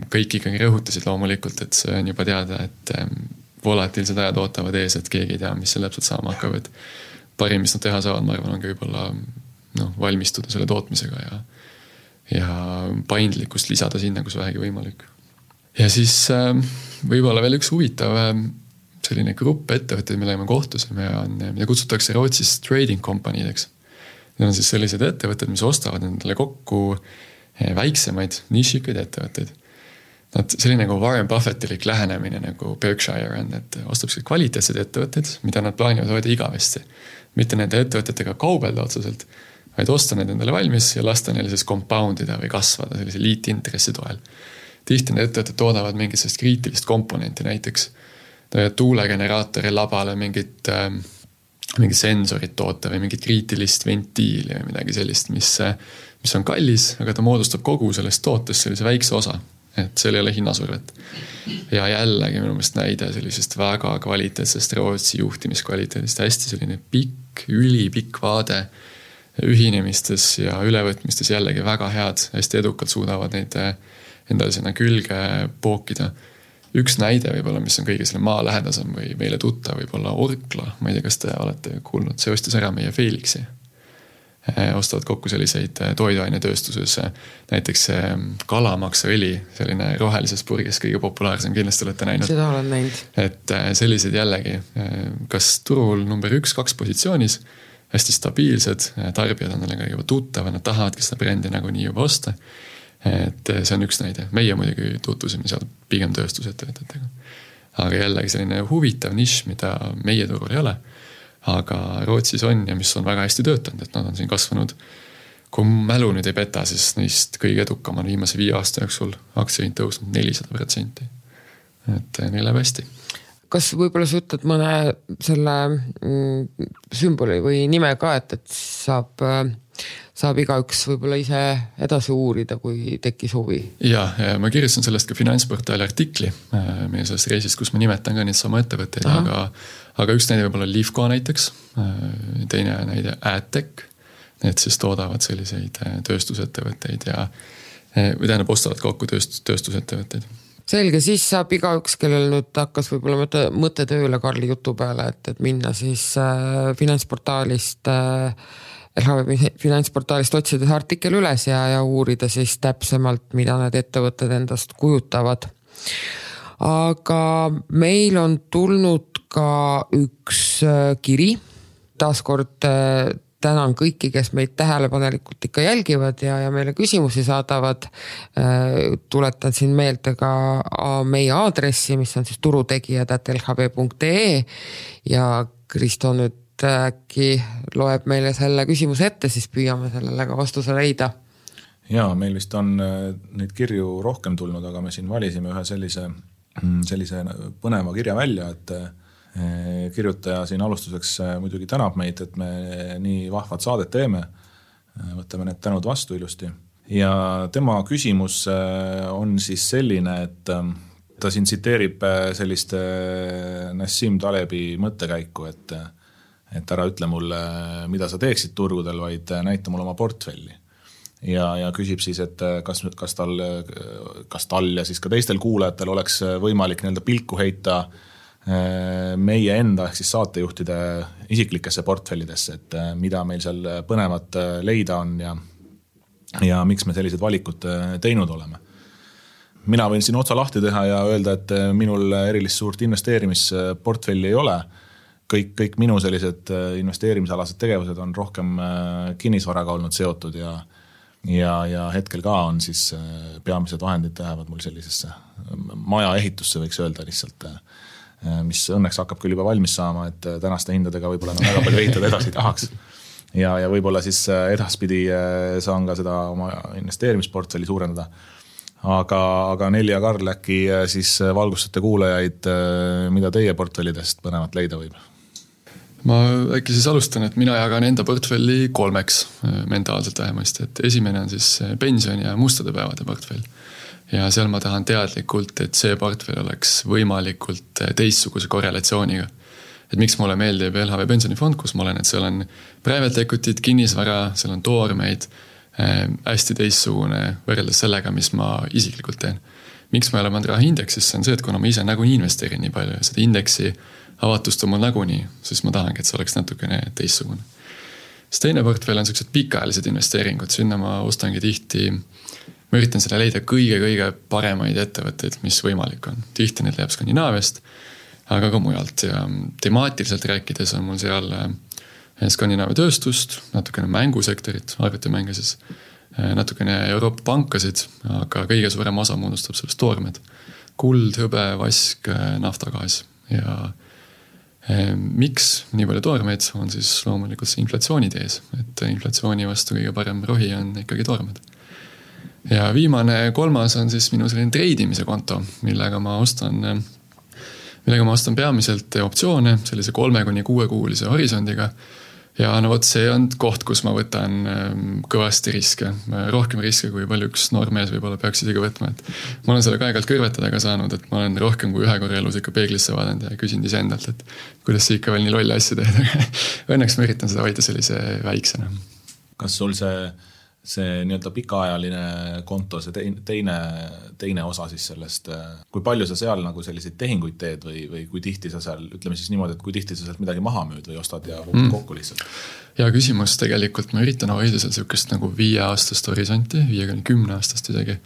[SPEAKER 2] kõik ikkagi rõhutasid loomulikult, et see on juba teada, et volatiilsed ajad ootavad ees, et keegi ei tea, mis see täpselt saama hakkab. Et parim, mis nad teha saavad, ma arvan, on ka võib-olla valmistuda selle tootmisega ja paindlikkust lisada sinna, kus vähegi võimalik. Ja siis võib-olla veel üks huvitav selline grupp ettevõtteid, millega me kohtusime, mida kutsutakse Rootsis trading company'deks. Need on siis sellised ettevõtted, mis ostavad endale kokku väiksemaid nišikaid ettevõtteid. Selline nagu Warren Buffettilik lähenemine nagu Berkshire on, et ostab kvaliteetsed ettevõtted, mida nad plaanivad hoida igavesti. Mitte nende ettevõtetega kaubelda otseselt, vaid osta need endale valmis ja lasta neile siis compoundida või kasvada sellise liitintressi toel. Tihti need ettevõtted toodavad mingit sellist kriitilist komponenti, näiteks tuulegeneraatori labale mingit sensorit toota või mingit kriitilist ventiili või midagi sellist, mis on kallis, aga ta moodustab kogu sellest tootest sellise väikse osa, et seal ei ole hinnasurvet. Ja jällegi minu meelest näide sellisest väga kvaliteetsest Rootsi juhtimiskvaliteedist, hästi selline pikk, ülipikk vaade ühinemistes ja ülevõtmistes jällegi väga head, hästi edukalt suudavad neid endale sinna külge pookida. Üks näide võib-olla, mis on kõige selle maa lähedasem või meile tutta, võib-olla Orkla, ma ei tea, kas te olete kuulnud, see ostis ära meie Felixi. Ostavad kokku selliseid toiduainetööstuses, näiteks kalamaksaõli, selline rohelises purgis kõige populaarsem, kindlasti olete näinud.
[SPEAKER 1] Seda olen näinud.
[SPEAKER 2] Et sellised jällegi, kas turul number 1-2 positsioonis, hästi stabiilsed, tarbijad on nelega juba tuttavad, nad tahavadki seda brändi nagu nii juba osta. Et see on üks näide. Meie muidugi tutvusime seal pigem tööstusettevõtetega. Aga jällegi selline huvitav nišš, mida meie turul ei ole. aga Rootsis on ja mis on väga hästi töötanud, et nad on siin kasvanud. Kui mälu nüüd ei peta, siis neist kõige edukam on viimase 5 aasta jooksul aktsiahind tõusnud 400%. Et neil läheb hästi.
[SPEAKER 1] Kas võib-olla sa ütled mõne selle sümboli või nime ka, et saab igaüks võib-olla ise edasi uurida, kui tekkis huvi?
[SPEAKER 2] Ja ma kirjutasin sellest ka Finantsportaali artikli meie sellest reisist, kus ma nimetan ka neid sama ettevõtteid, aga üks näide võib-olla Livko näiteks, teine näide AdTech, need siis toodavad selliseid tööstusettevõtteid ja või tähendab ostavad kokku tööstusettevõtteid.
[SPEAKER 1] Selge, siis saab igaüks, kellel nüüd hakkas võib-olla mõte tööle Karli jutu peale, et minna siis finantsportaalist, LHV finantsportaalist otsides artikkel üles ja uurida siis täpsemalt, mida need ettevõtted endast kujutavad. Aga meil on tulnud ka üks kiri, taaskord tänan kõiki, kes meid tähelepanelikult ikka jälgivad ja meile küsimusi saadavad. Tuletan siin meelde ka meie aadressi, mis on siis turutegijad@lhv.ee ja Kristo nüüd äkki loeb meile selle küsimuse ette, siis püüame sellele ka vastuse leida.
[SPEAKER 3] Ja, meil vist on neid kirju rohkem tulnud, aga me siin valisime ühe sellise põneva kirja välja, et kirjutaja siin alustuseks muidugi tänab meid, et me nii vahvad saadet teeme. Võtame need tänud vastu ilusti. Ja tema küsimus on siis selline, et ta siin tsiteerib sellist Nassim Talebi mõttekäiku, et ära ütle mulle, mida sa teeksid turgudel, vaid näita mulle oma portfelli. Ja küsib siis, et kas tal ja siis ka teistel kuulajatel oleks võimalik nii-öelda pilku heita meie enda ehk siis saatejuhtide isiklikesse portfellidesse, et mida meil seal põnevat leida on ja miks me sellised valikud teinud oleme. Mina võin siin otsa lahti teha ja öelda, et minul erilist suurt investeerimisportfelli ei ole. Kõik minu sellised investeerimisalased tegevused on rohkem kinnisvaraga olnud seotud ja hetkel ka on siis peamised vahendid lähevad mul sellisesse maja ehitusse, võiks öelda lihtsalt, mis õnneks hakkab küll juba valmis saama, et tänaste hindadega võib-olla väga palju ehitada edasi tahaks. Ja võib-olla siis edaspidi saan ka seda oma investeerimisportfelli suurendada. Aga Nelli ja Karl äkki siis valgustate kuulajaid, mida teie portfellidest põnevat leida võib?
[SPEAKER 2] Ma äkki siis alustan, et mina jagan enda portfelli 3 mentaalselt vähemasti, et esimene on siis pension ja mustade päevade portfell. Ja seal ma tahan teadlikult, et see portfell oleks võimalikult teistsuguse korrelatsiooniga. Et miks mulle meeldib LHV pensionifond, kus ma olen, et seal on private equity'd, kinnisvara, seal on toormeid, hästi teistsugune võrreldes sellega, mis ma isiklikult teen. Miks ma ei ole pannud raha indeksisse, on see, et kuna ma ise nagunii investeerin nii palju ja seda indeksi avatust on mul nagunii, siis ma tahangi, et see oleks natukene teistsugune. See teine portfell on sellised pikaajalised investeeringud, sinna ma ostangi tihti. Ma üritan selle leida kõige paremaid ettevõtteid, mis võimalik on. Tihti need leiab Skandinaaviast, aga ka mujalt. Ja temaatiliselt rääkides on mul seal Skandinaavia tööstust, natukene mängusektorit, arvutimänge siis, natukene Euroopa pankasid, aga kõige suurem osa moodustab sellest toormed. Kuld, hõbe, vask, naftagaas. Ja miks nii palju toormeid on siis loomulikult see inflatsioonitees, et inflatsiooni vastu kõige parem rohi on ikkagi toormed. Ja viimane 3. on siis minu selline treidimise konto, millega ma ostan peamiselt optsioone sellise 3-6 kuulise horisondiga. Ja no võt, see on koht, kus ma võtan kõvasti riske. Rohkem riske, kui palju üks noormees võib-olla peaks isegi võtma. Et ma olen selle aeg-ajalt kõrvetada ka saanud, et ma olen rohkem kui 1 korra elus ikka peeglisse vaadanud ja küsinud ise endalt, et kuidas see ikka veel nii lolle asja teed. Õnneks ma üritan seda hoida sellise väiksena.
[SPEAKER 3] Kas sul see nii-öelda pikaajaline konto, see teine osa siis sellest, kui palju sa seal nagu selliseid tehinguid teed või kui tihti sa seal, ütleme siis niimoodi, et kui tihti sa sealt midagi maha müüd või ostad ja kokku lihtsalt?
[SPEAKER 2] Ja küsimus tegelikult, ma üritan hoida seal sellist nagu 5-aastast horisonti, 5-10 aastast isegi.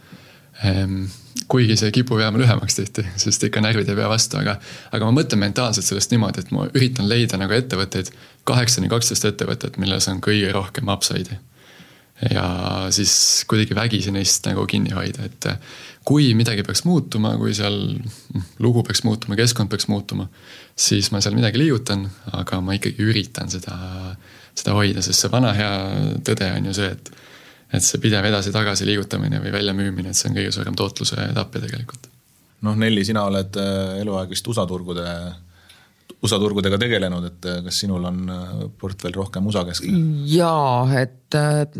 [SPEAKER 2] Kuigi see kipub jääma lühemaks tihti, sest ikka närvid ei pea vastu, aga ma mõtlen mentaalselt sellest niimoodi, et ma üritan leida nagu ettevõtteid, 8-12 ettevõtted, milles on kõige rohkem upside'i. ja siis kuidagi vägisi neist nagu kinni hoida, et kui midagi peaks muutuma, kui seal lugu peaks muutuma, keskkond peaks muutuma, siis ma seal midagi liigutan, aga ma ikkagi üritan seda hoida, sest see vana hea tõde on ju see, et see pidev edasi-tagasi liigutamine või väljamüümine, et see on kõige suurem tootluse etappe tegelikult.
[SPEAKER 3] Nelli, sina oled eluaeg vist USA-turgudega tegelenud, et kas sinul on portfell rohkem USA-keskne?
[SPEAKER 1] Jaa, et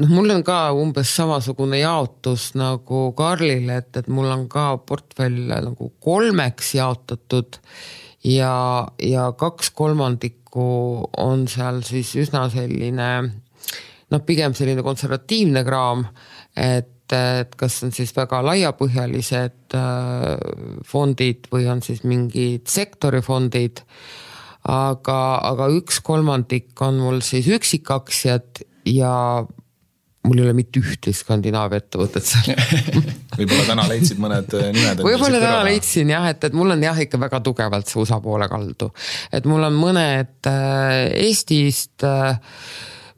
[SPEAKER 1] mul on ka umbes samasugune jaotus nagu Karlil, et mul on ka portfell nagu 3 jaotatud ja 2/3 on seal siis üsna selline, pigem selline konservatiivne kraam, et kas on siis väga laiapõhjalised fondid või on siis mingid sektorifondid, aga 1/3 on mul siis üksikaktsiad ja mul ei ole mitte ühte Skandinaavia ettevõtet seal.
[SPEAKER 3] Võib-olla täna leidsid mõned nimed.
[SPEAKER 1] Võib-olla täna leidsin jah, et mul on jah ikka väga tugevalt see USA poole kaldu. Et mul on mõned Eestist,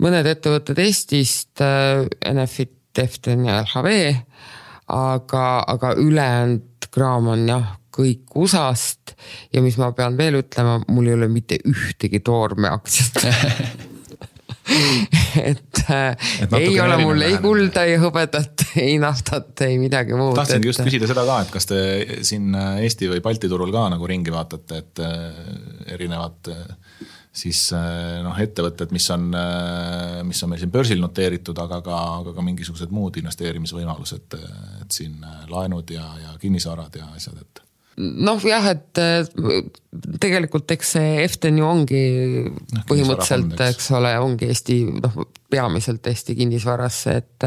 [SPEAKER 1] mõned ettevõtted Eestist, Enefit, Eften ja LHV, aga ülejäänud kraam on jah kõik USA-st ja mis ma pean veel ütlema, mul ei ole mitte ühtegi toorme aktsiat. et ei ole mul ei kulda, ei hõbedat, ei naftat, ei midagi muud.
[SPEAKER 3] Tahtsingi just küsida seda ka, et kas te siin Eesti või Balti turul ka nagu ringi vaatate, et erinevad siis ettevõtted, mis on meil siin börsil noteeritud, aga ka mingisugused muud investeerimisvõimalused, et siin laenud ja kinnisvarad ja asjad, et
[SPEAKER 1] jah, et tegelikult eks see Eften ju ongi põhimõtteliselt, eks ole, ongi Eesti, peamiselt Eesti kinnisvarasse, et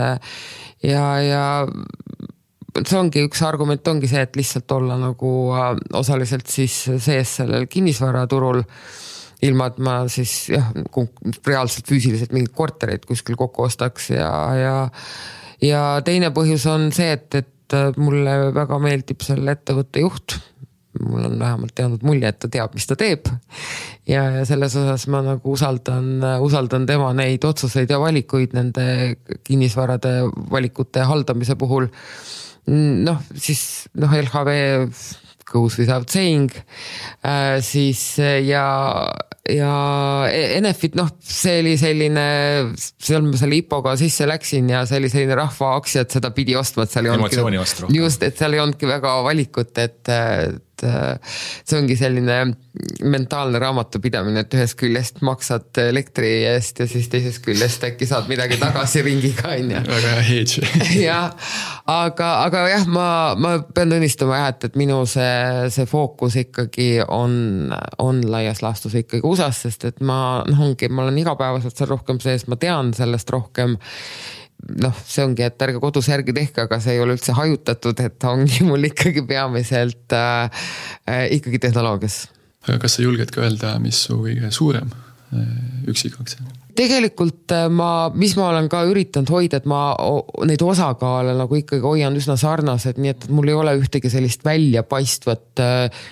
[SPEAKER 1] ja see ongi üks argument ongi see, et lihtsalt olla nagu osaliselt siis sees sellel kinnisvaraturul, ilma et ma siis reaalselt füüsiliselt mingid kortereid kuskil kokku ostaks ja teine põhjus on see, et mulle väga meeldib selle ettevõtte juht. Mul on vähemalt teadnud mulje, et ta teab, mis ta teeb. Ja selles osas ma nagu usaldan tema neid otsuseid ja valikuid nende kinnisvarade valikute haldamise puhul. Siis LHV goes without saying, siis ja Enefit, see oli selline, seal ma selle IPO-ga sisse läksin ja see oli selline rahva aktsiad, seda pidi ostma, et seal ei
[SPEAKER 3] olnud
[SPEAKER 1] just, et seal ei olnudki väga valikut, et see ongi selline mentaalne raamatupidamine, et ühest küljest maksad elektri eest ja siis teisest küljest äkki saad midagi tagasi ringiga.
[SPEAKER 2] Väga hedge.
[SPEAKER 1] aga jah, ma pean tunnistama, et minu see fookus ikkagi on laias laastus ikkagi USA-s, sest et ma olen igapäevaselt seal rohkem sees, ma tean sellest rohkem. See ongi, et ärge kodus järgi tehke, aga see ei ole üldse hajutatud, et ongi mul ikkagi peamiselt ikkagi tehnoloogias.
[SPEAKER 2] Aga kas sa julged ka öelda, mis su kõige suurem üksikaktsia?
[SPEAKER 1] Tegelikult mis ma olen ka üritanud hoida, et ma neid osakaale nagu ikkagi hoian üsna sarnased, nii et mul ei ole ühtegi sellist väljapaistvat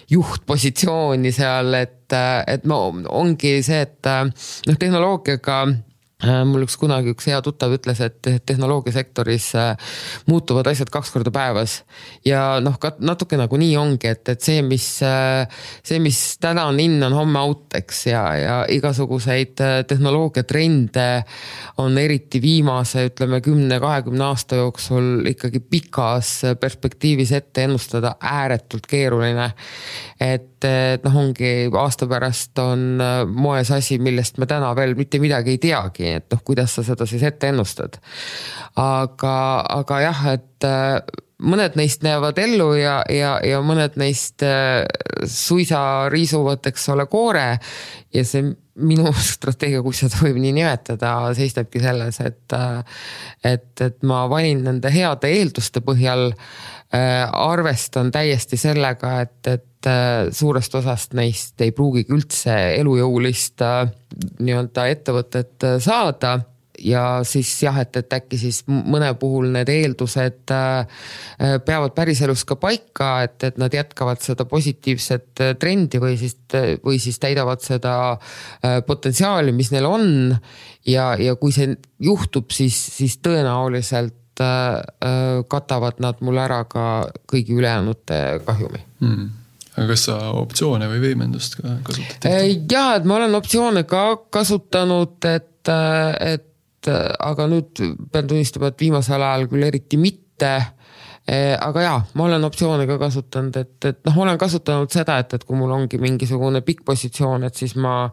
[SPEAKER 1] juhtpositsiooni seal, et ongi see, et tehnoloogiaga mul kunagi üks hea tuttav ütles, et tehnoloogiasektoris muutuvad asjad 2 korda päevas ja natuke nagu nii ongi, et see, mis täna on in, on homme out, eks, ja igasuguseid tehnoloogiatrende on eriti viimase, ütleme 10-20 aasta jooksul ikkagi pikas perspektiivis ette ennustada ääretult keeruline, et ongi aasta pärast on moes asi, millest me täna veel mitte midagi ei teagi, et kuidas sa seda siis ette ennustad. Aga jah, et mõned neist näevad ellu ja mõned neist suisa riisuvad, eks ole, koore ja see minu strateegia, kui seda võib nii nimetada, seisnebki selles, et ma valin nende heade eelduste põhjal, arvestan täiesti sellega, et suurest osast neist ei pruugigi üldse elujõulist nii-öelda ettevõtet saada siis jah, et äkki siis mõne puhul need eeldused peavad päriselus ka paika, et nad jätkavad seda positiivset trendi või siis täidavad seda potentsiaali, mis neil on ja kui see juhtub, siis tõenäoliselt katavad nad mul ära ka kõigi ülejäänute kahjumi.
[SPEAKER 2] Aga kas sa optsioone või võimendust ka kasutad?
[SPEAKER 1] Jah, et ma olen optsioone ka kasutanud, aga nüüd pean tunnistama, et viimasel ajal küll eriti mitte, aga jah, ma olen optsioone ka kasutanud, et ma olen kasutanud seda, et kui mul ongi mingisugune pikk positsioon, et siis ma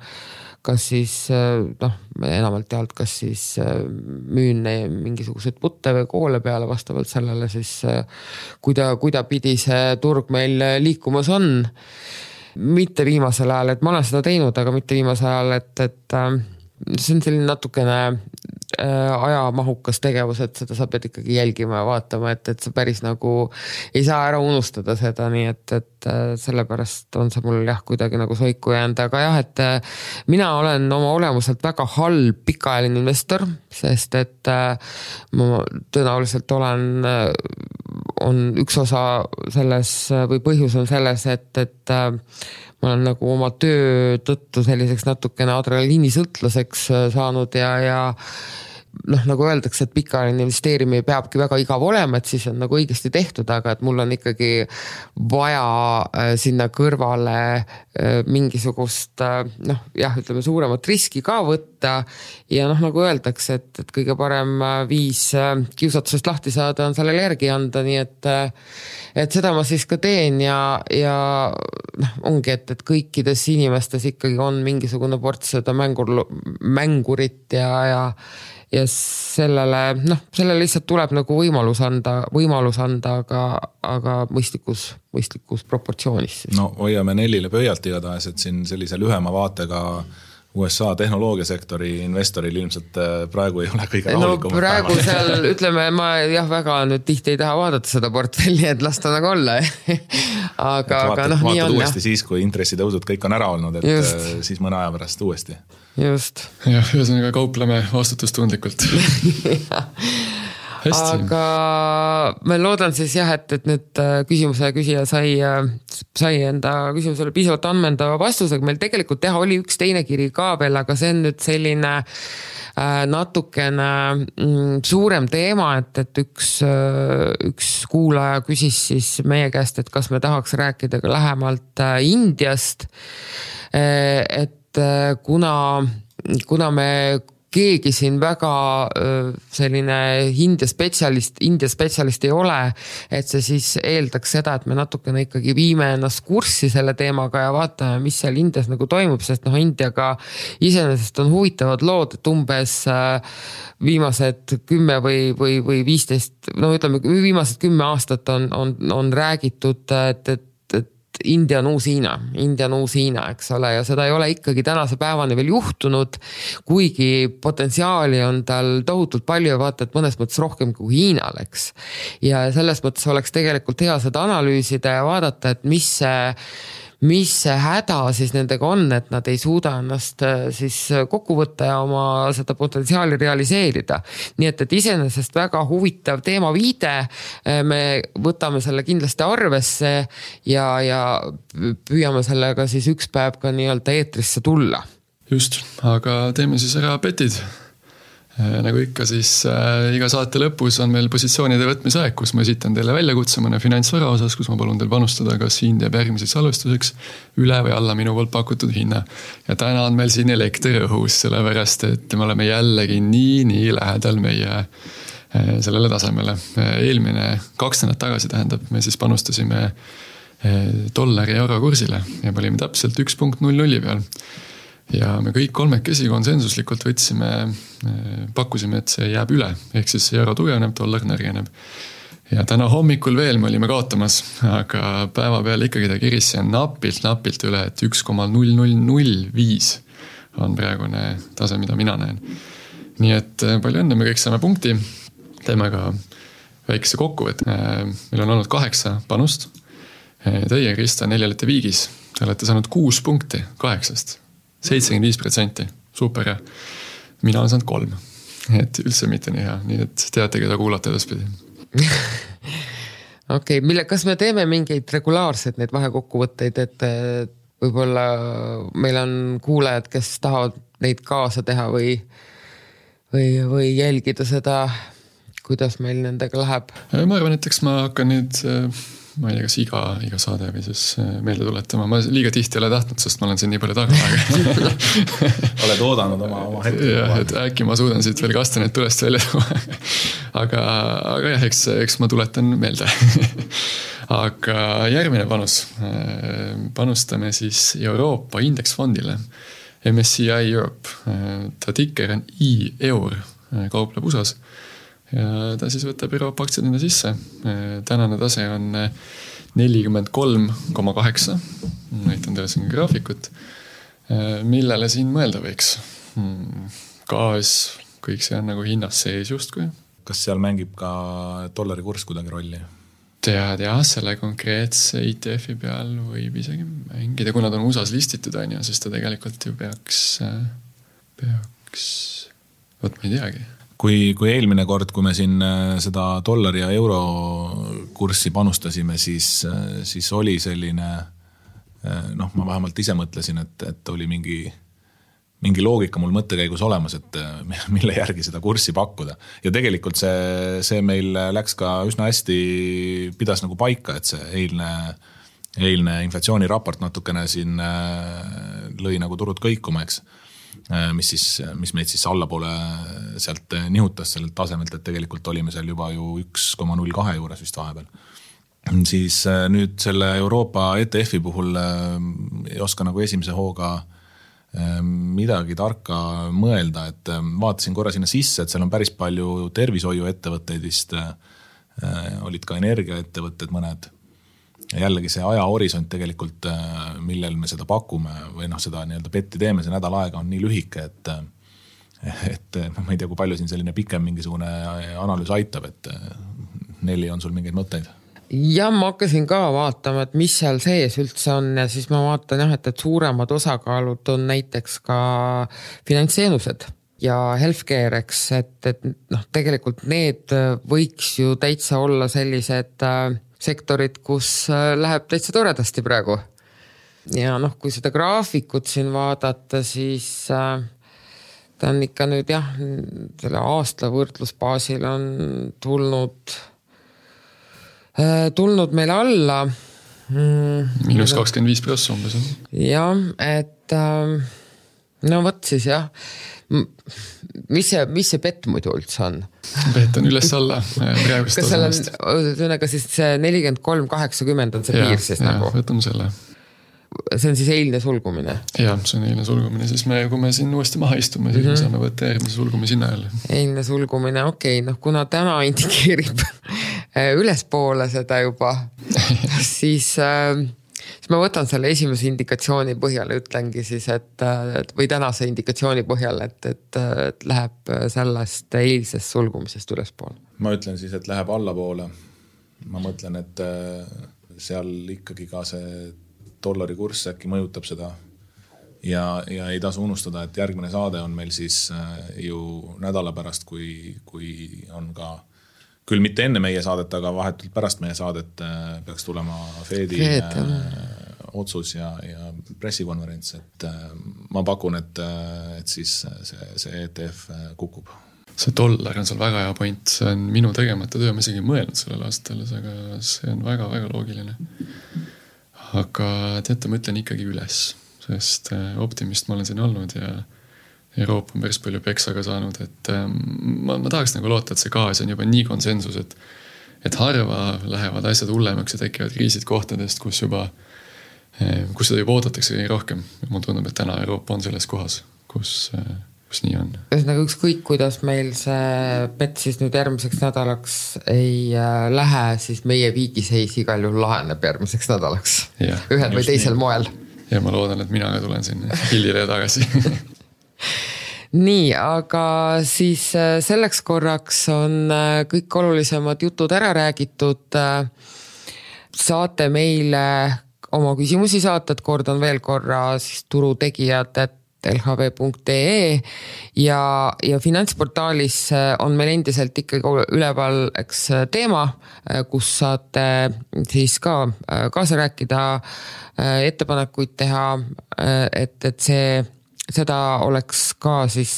[SPEAKER 1] kas siis enamalt jaolt, kas siis müün mingisuguseid putte või koole peale vastavalt sellele siis, kui ta pidi see turg meil liikumas on. Mitte viimasel ajal, et ma olen seda teinud, aga mitte viimasel ajal, et see on selline natukene ajamahukas tegevus, et seda sa pead ikkagi jälgima ja vaatama, et sa päris nagu ei saa ära unustada seda, nii et sellepärast on see mul jah kuidagi nagu soiku jäänud, aga jah, et mina olen oma olemuselt väga halb pikaajaline investor, sest et ma tõenäoliselt on üks osa selles või põhjus on selles, et ma olen nagu oma töö tõttu selliseks natukene adrenaliinisõltlaseks saanud ja nagu öeldakse, et pikaajaline investeerimine peabki väga igav olema, et siis on nagu õigesti tehtud, aga et mul on ikkagi vaja sinna kõrvale mingisugust ütleme suuremat riski ka võtta ja nagu öeldakse, et kõige parem viis kiusatusest lahti saada on sellele järgi anda, nii et seda ma siis ka teen ja ongi, et kõikides inimestes ikkagi on mingisugune ports seda mängurit ja sellele lihtsalt tuleb nagu võimalus anda, aga mõistlikus proportsioonis. Siis.
[SPEAKER 3] No hoiame Nellile pöialt igatahes, et siin sellise lühema vaatega USA tehnoloogiasektori investoril ilmselt praegu ei ole kõige rahulikum.
[SPEAKER 1] No praegu seal, ütleme, ma väga nüüd tihti ei taha vaadata seda portfelli, et lasta nagu olla. aga
[SPEAKER 3] vaatad
[SPEAKER 1] nii on.
[SPEAKER 3] Uuesti siis, kui intressitõusud kõik on ära olnud, et just. Siis mõne aja pärast uuesti.
[SPEAKER 1] Just.
[SPEAKER 2] Jah, ühesõnaga kaupleme vastutustundlikult.
[SPEAKER 1] Aga ma loodan siis jah, et nüüd küsimuse küsija sai enda küsimusele piisavalt ammendava vastusega. Meil tegelikult teha oli üks teine kiri ka veel, aga see on nüüd selline natukene suurem teema, et üks kuulaja küsis siis meie käest, et kas me tahaks rääkida ka lähemalt Indiast, et kuna me keegi siin väga selline India spetsialist ei ole, et see siis eeldaks seda, et me natukene ikkagi viime ennast kurssi selle teemaga ja vaatame, mis seal Indias nagu toimub, sest Indiaga iseenesest on huvitavad lood, et umbes viimased 10 või 15, ütleme viimased 10 aastat on räägitud, et India on uus Hiina, eks ole, ja seda ei ole ikkagi tänase päevani veel juhtunud, kuigi potentsiaali on tal tohutult palju ja vaata, et mõnes mõttes rohkem kui Hiinal, eks. Ja selles mõttes oleks tegelikult hea seda analüüsida ja vaadata, et mis see häda siis nendega on, et nad ei suuda ennast siis kokku võtta ja oma seda potentsiaali realiseerida. Nii et iseenesest väga huvitav teema viide, me võtame selle kindlasti arvesse ja püüame sellega siis üks päev ka nii-öelda eetrisse tulla.
[SPEAKER 2] Just, aga teeme siis ära petid. Nagu ikka siis iga saate lõpus on meil positsioonide võtmise aeg, kus ma esitan teile väljakutse mõne finantsvara osas, kus ma palun teil panustada, kas hind jääb järgmiseks salvestuseks üle või alla minu poolt pakutud hinna. Ja täna on meil siin elekter õhus, sellepärast et me oleme jällegi nii lähedal meie sellele tasemele. Eelmine 2 nädalat tagasi tähendab, me siis panustasime dollari euro kursile ja olime täpselt 1.00 peal. Ja me kõik kolmekesi konsensuslikult pakkusime, et see jääb üle, ehk siis euro tugevneb, dollar nõrgeneb. Ja täna hommikul veel me olime kaotamas, aga päeva peal ikkagi ta kiris ja napilt üle, et 1,0005 on praegune tase, mida mina näen. Nii et palju õnne, me kõik saame punkti, teeme ka väikese kokkuvõtte. Meil on olnud 8 panust, teie, Krista, 4 olete viigis, te olete saanud 6 punkti 8-st. 75%, super ja mina olen saanud 3. et üldse mitte nii hea, nii et teate, keda kuulata edaspidi.
[SPEAKER 1] Okei, kas me teeme mingeid regulaarseid neid vahekokkuvõtteid, et võib-olla meil on kuulajad, kes tahavad neid kaasa teha või jälgida seda, kuidas meil nendega läheb?
[SPEAKER 2] Ma arvan, et eks ma hakkan nüüd, ma ei tea, kas iga saade või siis meelde tuletama. Ma liiga tihti ei ole tahtnud, sest ma olen siin nii palju taga.
[SPEAKER 3] Oled oodanud oma hetke.
[SPEAKER 2] Jah, et äkki ma suudan siit veel kastaneid tulest välja tuua. Aga jah, eks ma tuletan meelde. Aga järgmine panus. Panustame siis Euroopa indeksfondile. MSCI Europe. Ta tikker on EUR, kaupleb USAs. Ja ta siis võtab Euroopa aktsiadina sisse. Tänane tase on 43,8. Näitan teile siin graafikut. Millele siin mõelda võiks? Gaas, kõik see on nagu hinnas sees justkui.
[SPEAKER 3] Kas seal mängib ka dollari kurss kuidagi rolli?
[SPEAKER 2] Tead jah, selle konkreetse ETF-i peal võib isegi mängida, kuna ta on USAs listitud, siis ta tegelikult ju peaks, võt ma ei teagi.
[SPEAKER 3] Kui eelmine kord, kui me siin seda dollari ja euro kurssi panustasime, siis oli selline, ma vähemalt ise mõtlesin, et oli mingi loogika mul mõttekäigus olemas, et mille järgi seda kurssi pakkuda. Ja tegelikult see meil läks ka üsna hästi, pidas nagu paika, et see eilne inflatsiooniraport natukene siin lõi nagu turud kõikuma, eks. Mis meid siis allapoole sealt nihutas sellelt tasemelt, et tegelikult olime seal juba ju 1,02 juures vist vahepeal. Siis nüüd selle Euroopa ETF-i puhul ei oska nagu esimese hooga midagi tarka mõelda, et vaatasin korra sinna sisse, et seal on päris palju tervishoiuettevõtteid vist, olid ka energiaettevõtted mõned. Ja jällegi see ajahorisont tegelikult, millel me seda pakume või seda nii-öelda betti teeme, see nädal aega on nii lühike, et ma ei tea, kui palju siin selline pikem mingisugune analüüs aitab, et Nelli on sul mingeid mõtteid?
[SPEAKER 1] Ja ma hakkasin ka vaatama, et mis seal sees üldse on ja siis ma vaatan et suuremad osakaalud on näiteks ka finantsteenused ja healthcare, eks, et tegelikult need võiks ju täitsa olla sellised sektorid, kus läheb täitsa toredasti praegu. Ja kui seda graafikut siin vaadata, siis ta on ikka nüüd selle aasta võrdlusbaasil on tulnud meil alla.
[SPEAKER 2] Miinus 25% umbes.
[SPEAKER 1] Ja, et võt siis jah. Mis see bett muidu üldse on?
[SPEAKER 2] Bett on üles alla.
[SPEAKER 1] Kas seal on, siis see 43,80 on see piir siis nagu?
[SPEAKER 2] Võtame selle.
[SPEAKER 1] See on siis eilne sulgumine?
[SPEAKER 2] Jah, see on eilne sulgumine. Siis kui me siin uuesti maha istume, siis me saame võtta järgmise sulgumi sinna jälle. Eilne
[SPEAKER 1] sulgumine, okei. Kuna täna indikeerib ülespoole seda juba, siis ma võtan selle esimese indikatsiooni põhjal ja ütlengi siis, või tänase indikatsiooni põhjal, et läheb sellest eilsest sulgumisest ülespoole.
[SPEAKER 3] Ma ütlen siis, et läheb allapoole. Ma mõtlen, et seal ikkagi ka see dollari kurss äkki mõjutab seda ja ei tasu unustada, et järgmine saade on meil siis ju nädala pärast, kui on ka küll mitte enne meie saadet, aga vahetult pärast meie saadet peaks tulema Fedi otsus ja pressikonverents, et ma pakun, et siis see ETF kukub.
[SPEAKER 2] See dollar on seal väga hea point, see on minu tegemata töö, ma isegi mõelnud sellel aastal, aga see on väga-väga loogiline. Aga teate, ma ütlen ikkagi üles, sest optimist ma olen siin olnud ja Euroopa on päris palju peksaga saanud, et ma tahaks nagu loota, et see gaas on juba nii konsensus, et harva lähevad asjad hullemaks ja tekivad kriisid kohtadest, kus seda juba oodatakse kõige rohkem. Mul tundub, et täna Euroopa on selles kohas, kus nii on.
[SPEAKER 1] Nagu ükskõik, kuidas meil see bett siis nüüd järgmiseks nädalaks ei lähe, siis meie viigiseis igal juhul laheneb järgmiseks nädalaks. Ühel või teisel moel.
[SPEAKER 2] Ja ma loodan, et mina ka tulen siin hillile tagasi.
[SPEAKER 1] Nii, aga siis selleks korraks on kõik olulisemad jutud ära räägitud. Saate meile oma küsimusi saata, et kordan veel korra siis turutegijad, et lhv.ee ja finantsportaalis on meil endiselt ikkagi üleval teema, kus saate siis ka kaasa rääkida, ettepanekuid teha, et seda oleks ka siis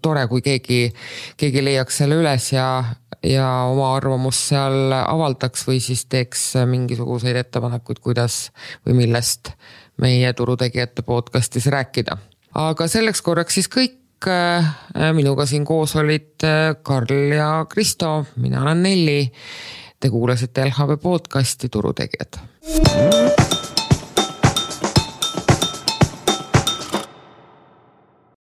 [SPEAKER 1] tore, kui keegi leiaks selle üles ja oma arvamust seal avaldaks või siis teeks mingisuguseid ettepanekuid, kuidas või millest meie turutegijate podcastis rääkida. Aga selleks korraks siis kõik. Minuga siin koos olid Karl ja Kristo, mina olen Nelli. Te kuulasite LHV podcasti Turutegijad.